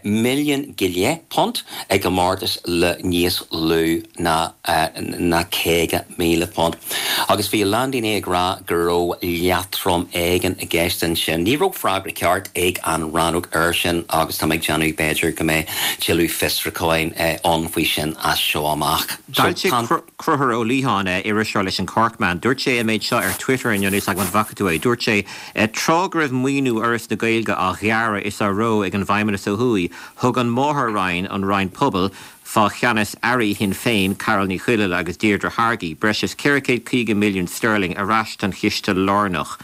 Speaker 8: milliún go leith punt i gcomórtas le níos lú ná ná £50,000. Agus bhí a lán daoine ag rá go raibh leatrom éigin i gceist ansin. Ní raibh freagra ceart ag an rannóg air sin agus tá mé ag déanamh b'fhéidir go mbeidh tuilleadh fiosrúcháin ann faoi sin as seo amach.
Speaker 1: D'fhoilsigh Conchúr Ó Liatháin, iriseoir leis an Corkman, dúirt sé an méid seo ar Twitter inniu, níl 's agam an bhfaca tú é, dúirt sé, Tráth go raibh maoiniú Fhoras na Gaeilge á ghearradh is á reo ag an bhFeidhmeannas ó thuaidh, thug an máthair-roinn, an Roinn Pobal, fá cheannas airí Shinn Féin, Carál Ní Chuilinn agus Deirdre Hargey, breis is 450 milliún sterling ar ais don chiste lárnach.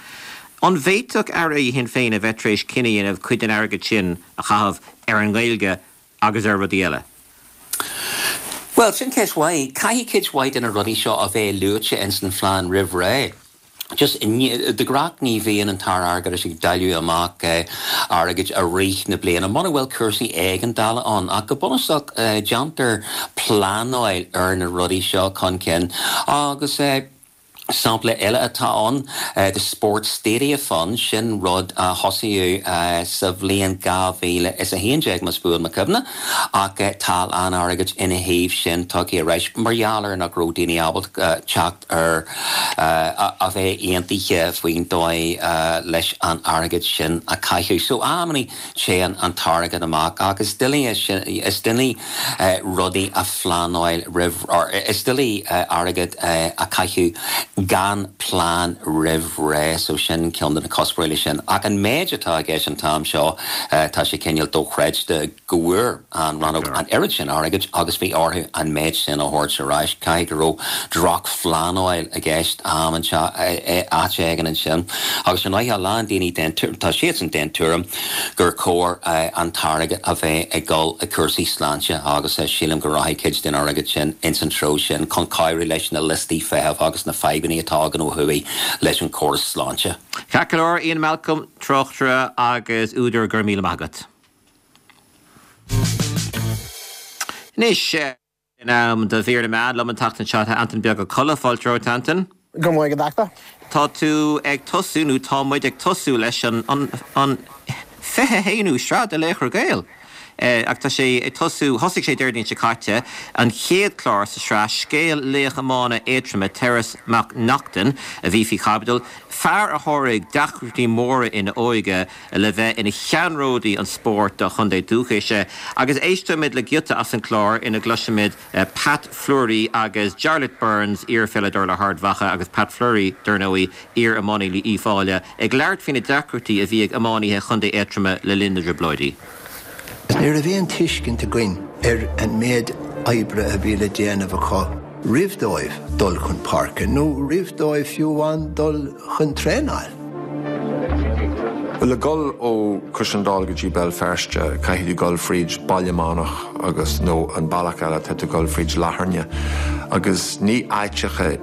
Speaker 1: An bhféadfadh airí Shinn Féin a bheith tar éis cinneadh a dhéanamh cuid den airgead sin a chaitheamh ar an nGaeilge agus ar rudaí eile?
Speaker 8: Bhuel, sin ceist mhaith. Caithfidh cuid mhaith de na rudaí seo a bheith luaite ins an phlean roimh ré. Just, de ghnáth ní bhíonn an tAire Airgeadais ag dáileadh amach airgid i rith na bliana muna bhfuil cúrsaí éigeandála ann ach go bunúsach déantar pleanáil ar na rudaí seo chun cinn agus sampla eile atá ann, the Sports Stadia Fund, sin rud a thosaíodh sa bhliain 2011 más buan mo chuimhne ach tá a lán airgid ina thaobh sin tugtha ar ais mar gheall ar nach raibh daoine ábalta teacht ar a bheith aontaithe faoin dóigh leis an airgead sin a chaitheamh. So amannaí téann an t-airgead amach ach is doiligh is doiligh rudaí a phleanáil roimh or is doiligh airgead a chaitheamh gan plean roimh ré. So sin ceann de na cuspóirí leis sin. Ach an méid atá i gceist an t-am seo tá sé cineál dochreidte go bhfuair an rannóg an oiread sin airgid agus bhí orthu an méid sin a thabhairt ar ais. Caithfidh go raibh drochphleanáil i gceist am áit éigin ansin. Agus ar ndóigh a lán daoine den tá siadsan den tuairim gur chóir an t-airgead a bheith ag dul i cúrsaí sláinte agus sílim go rachaidh cuid den airgead sin ins an treo sin chun cabhrú leis na liostaí feithimh agus na fadhbanna atá againn ó thuaidh leis an chóras sláinte.
Speaker 1: Ceart go leor, Ian Malcolm, tráchtaire agus údar, go raibh míle maith agat. Anois, in am do mhír na meán liom an tseachtain seo tá Antain Beag Ó Colla. Fáilte romhat, Antain.
Speaker 9: Go raibh maith agat, a Dheachta.
Speaker 1: Tá tú ag tosú, nó tá muid ag tosú leis an an an 21ú sraith de Laochra Gael. Ach tá sé ag tosú, thosaigh sé Déardaoin seo caite, an chéad chlár sa sraith, scéal laoch iomána Aontroma, Terence Mac Neachtain, a bhí faoi chaibidil, fear a sháraigh deacrachtaí móra ina óige, le bheith ina cheannródaí an spóirt dá chontae dúchais. Agus éistfimid le giota as an chlár ina gcloisfimid Pat Fleury agus Jarlath Burns, iar-pheileadóir le hArd Mhacha, agus Pat Fleury, dar ndóigh, iar-iománaí le Uíbh Fhailí, ag labhairt faoi na deacrachtaí a bhí ag iománaithe Chontae Aontroma le linn na dTrioblóidí.
Speaker 10: Ní raibh aon tuiscint againn ar an méid oibre a bhí le déanamh acu roimh dóibh dul chun páirce, nó roimh dóibh fiú amháin dul chun traenáil.
Speaker 11: Bhuel, le dhul ó Cois an Dúin go dtí Béal Feirste, caithfidh tú dhul fríd Baile Meánach agus, nó an bealach eile, tá tú dhul fríd Latharna. Agus ní áiteacha,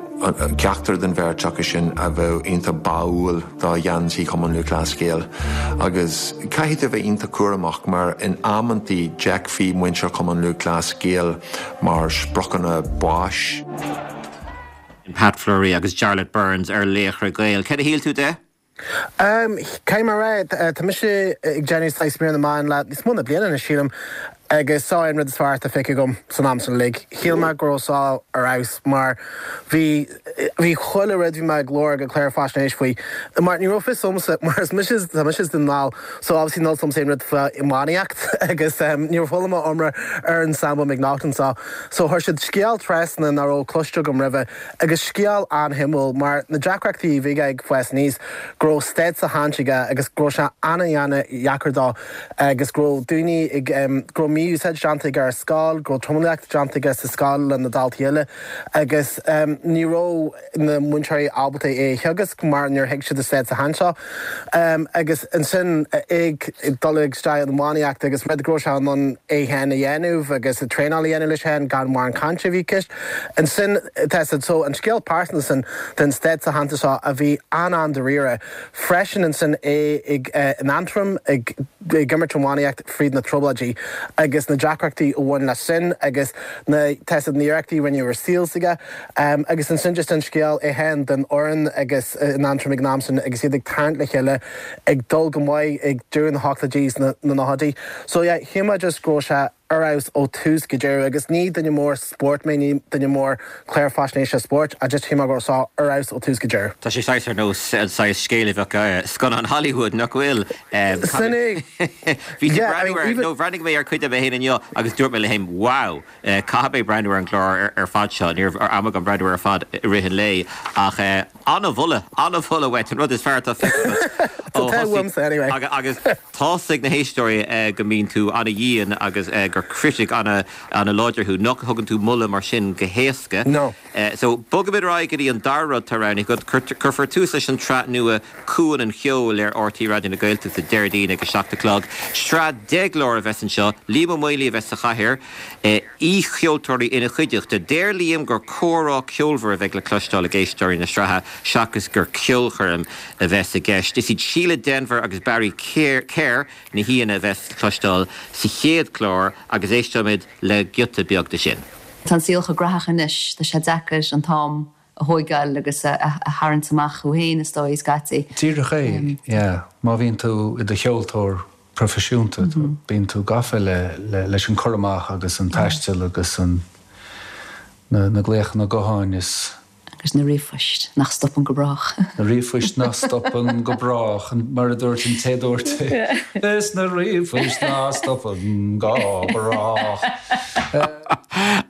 Speaker 11: ceachtar den bheirt acu sin a bheadh iontach báúil do gheansaí Chumann Lúthchleas Gael. Agus caithfidh tú a bheith iontach cúramach mar in amantaí d'fheicfí muintir Chumann Lúthchleas Gael mar spriocanna báis.
Speaker 1: Pat Fleury agus Jarlath Burns ar Laochra Gael. Céard a shíl tú de?
Speaker 9: Caithfidh mé a rá, tá mise ag déanamh saghas mír na meán le níos mó na bliana anois, sílim, agus seo é an rud is fearr atá feicthe agam san am sin uilig. Shíl mé go raibh seo ar fheabhas mar bhí, bhí chuile rud, bhí mé ag lorg ag clár faisnéis faoi, mar ní raibh fios agamsa, mar is mise, tá mise as Dún na nGall, so obviously níl 'fhios a'msa aon rud fá iománaíocht agus níor chuala mé iomrá ar an Sambo McNaughton seo. So chuir siad scéal trasna nach raibh cloiste agam roimhe agus scéal an-shuimiúil mar na deacrachtaí a bhí aige ag fás aníos, go raibh stádas á shannadh aige agus go raibh sé an-an-dheacair dó agus go raibh daoine ag, go raibh mí-úsáid déanta aige ar scoil, go raibh tromaíocht déanta aige sa scoil le na daltaí eile agus ní raibh na múinteoirí ábalta é a theagasc mar níor thuig siad a stádas seo. Agus ansin ag dul isteach in iománaíocht agus rud go raibh sé in ann é féin a dhéanamh agus traenáil a dhéanamh leis féin gan mórán cainte a bhí i gceist. Ansin tá siad so an scéal pearsanta sin den stádas aitheanta seo a bhí an-an-dáiríre. Freisin ansin é ag in Antrim ag. ag imirt iománaíocht fríd na trioblóidí agus na deacrachtaí a bhain leis sin agus na tá a fhios agat na hiarrachtaí a rinneadh ar saol s'aige agus ansin just an scéal é féin den fhoireann agus in Aontroim ag an am sin agus iad ag tarraingt le chéile ag dul go maith ag deireadh na hochtóidí is na nóchaidí. So yeah shíl mé just go raibh sé ar fheabhas ó tús go deireadh agus ní duine mór spóirt mé, ní duine mór clár faisnéise spóirt ach just shíl mé go raibh sé ar fheabhas ó tús go deireadh.
Speaker 1: Tá sé saghas ar nós an saghas scéil a bheadh i scannán Hollywood, nach bhfuil?
Speaker 9: Sin é.
Speaker 1: Bhí tú breathnú ar, nó bhreathnaigh mé ar cuid de mé féin inniu agus dúirt mé liom féin, wow! Caithfidh mé breathnú ar an gclár ar fad seo. Ní raibh am agam breathnú air ar fad i rith an lae ach an-mholadh, an-mholadh uait, an rud is fearr atá feicthe agat ó thosaigh agus Tá's ag na héisteoirí go mbíonn tú ana-dhian agus gur critic ana-láidir thú, nach thugann tú moladh mar sin go héasca.
Speaker 9: No.
Speaker 1: So, bogfaimid ar aghaidh go dtí an dara rud atá roghnaithe agat. Cuirfear tús leis an tsraith nua Cuan an Cheoil ar RTÉ Raidió na Gaeltachta Déardaoin ag a 7 a chlog. Sraith 10 gclár a bheas anseo. Liam Ó Maonlaí a bheas sa chathaoir, aoicheoltóirí ina chuideachta. Deir Liam gur comhrá ceolmhar a bheidh le cloisteáil ag éisteoirí na sraithe seachas gur ceolchoirm a bheas i gceist. Is iad Síle Denvir agus Barry Kerr na haíonna a bheas le cloisteáil sa chéad chlár agus éisteoimid le giota beag de sin.
Speaker 12: Tá an saol chomh graitheach anois, tá sé deacair an t-am a thóigeáil agus a tharraingt amach thú féin, is dóigh, scaití.
Speaker 13: Díreach é, yeah. Má bhíonn tú i do cheoltóir proifisiúnta, bíonn tú gafa le leis an cur amach agus an taisteal agus an na glaochanna gutháin is.
Speaker 12: Agus na ríomhphoist nach stopann go brách.
Speaker 13: Na ríomhphoist nach stopann go brách, mar a dúirt an té a dúirt é. Is na ríomhphoist nach stopann go brách.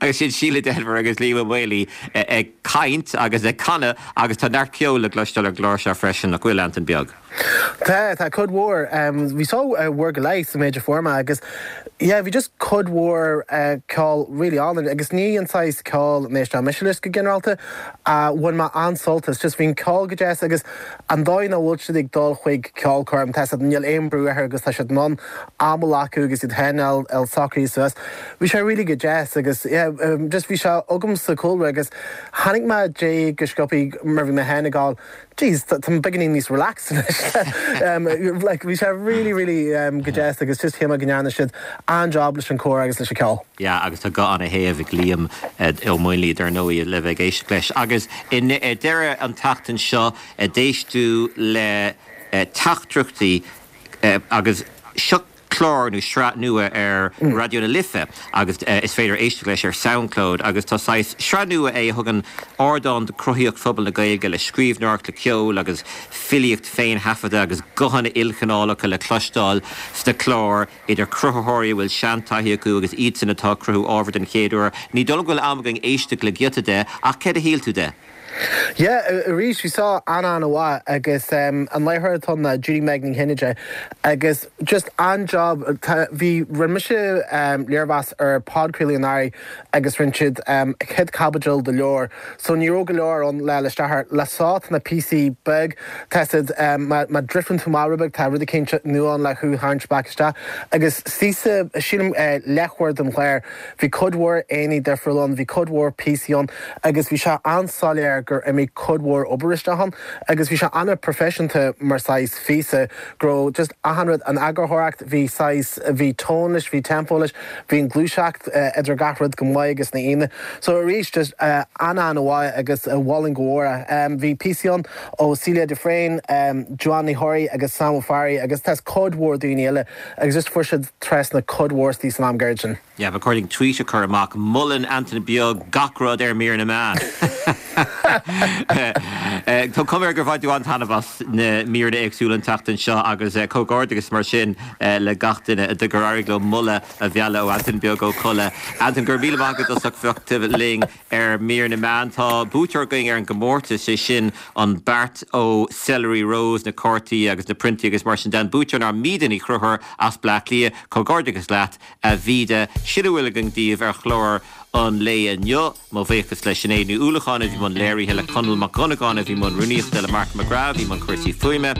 Speaker 1: Agus sin Síle Denvir agus Liam Ó Maonlaí ag caint agus ag canadh agus tá neart ceoil le cloisteáil ar an gclár seo freisin, nach bhfuil, Antain Beag?
Speaker 9: Tá, tá cuid mhór. Bhí só uair go leith sa méid a fuair mé agus yeah bhí just cuid mhór ceol really álainn agus ní an saghas ceoil a n-éisteann mise leis go ginearálta ach bhain mé an-sult as. Just bhí an ceol go deas agus an dóigh nach bhfuil siad ag dul chuig ceolchoirm, tá a fhios agat, níl aon brú orthu agus tá siad in ann am a ghlacadh agus iad féin a fháil socraithe suas. Bhí sé really go deas agus yeah just bhí sé agam sa chúlra agus tháinig mé de go sciobthaí mar bhí mé féin ag gabháil Jeez, tá mé beagáinín níos relaxed anois. Like, bhí sé really, really go deas agus just shíl mé go ndearna siad an-job leis an chomhrá agus leis an cheol.
Speaker 1: Yeah, agus tá guth ana-shéimh ag Liam Ó Maonlaí, dar ndóigh, le bheith ag éisteacht leis. Agus i ndeireadh an tseachtain seo, d'éist tú le teachtaireachtaí agus seo, clár nó sraith nua ar Raidió na Life agus is féidir éisteacht leis ar Soundcloud agus tá saghas sraith nua é a thugann ardán do chruthaíocht phobal na Gaeilge le scríbhneoireacht, le ceol agus filíocht féin-thaifeadta agus guthanna ilchineálacha le cloisteáil sna cláir idir chruthaitheoirí a bhfuil seantaithí acu agus iadsan atá ag cruthú ábhar den chéad uair. Ní dóigh liom go bhfuil am againn éisteacht le giota de ach céard a shíl tú de?
Speaker 9: Yeah, arís, bhí seo an-an-mhaith agus an láithreoir atá ann ná Judy Meg Ní Chinnéide agus just an-job, tá, bhí, rinne mise léirmheas ar podchraoladh anuraidh agus rinne siad an chéad chaibidil de leabhar so ní raibh go leor ann le isteach air. Le seo tá na píosaí beag, tá siad, má, má drifteann tú amach rud beag tá rud eicínt nua ann le thú a tharraingt back isteach agus síos, sílim leathuair den chlár Bhí cuid mhór aíonna difriúla ann, bhí cuid mhór píosaí ann agus bhí sé an-soiléir gur imigh cuid mhór obair isteach ann agus bhí sé an-proifisiúnta mar saghas phíosa, go raibh just achan rud, an eagarthóireacht, bhí saghas, bhí tone leis, bhí tempo leis, bhí an gluaiseacht idir gach rud go maith agus na haíonna. So arís just an-an-mhaith agus mholfainn go mhór é. Bhí píosaí ann ó Celia de Fréine, Joanne Ní Chorraí agus Sam Ó Fearraigh agus tá cuid mhór daoine eile Agus just fuair siad trasna cuid mhór istigh san am gairid sin.
Speaker 1: Yeah, ba chóir dúinn tweet a chur amach, Molann Antain Beag gach rud ar Mír na Meán. Tá cuma air gur bhain tú an-taitneamh as na míreanna éagsúla an tseachtain seo agus comhghairdeachas mar sin le gach duine gur éirigh leo moladh a mhealladh ó Antain Beag Ó Colla. Antain, go raibh míle maith agat as ucht a bheith linn. Ar Mír na Meán, tá buaiteoir againn ar an gcomórtas, sé sin an beart ó Celery Rose, na cártaí agus na priontaí agus mar sin de. An buaiteoir ná Míde Ní Chonchúir as Bleá Cliath. Comhghairdeachas leat, a Mhíde. Sin a bhfuil againn daoibh ar chlár an lae inniu. Mo bhuíochas le Sinéad Ní Uallacháin a bhí i mbun léirithe, le Conall Mac Dhonnagáin a bhí i mbun rúnaíochta, le Mark McGrath a bhí i mbun cúrsaí fuaime.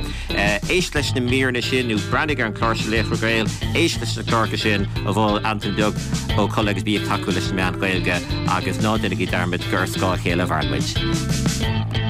Speaker 1: Éist leis na míreanna sin nó breathnaigh ar an chlár seo Laochra Gael. Éist leis na cláracha sin a mhol Antain Beag Ó Colla agus bí ag tacú leis na meáin Ghaeilge agus ná déanaigí dearmad gur ar scáth a chéile a mhaireann muid.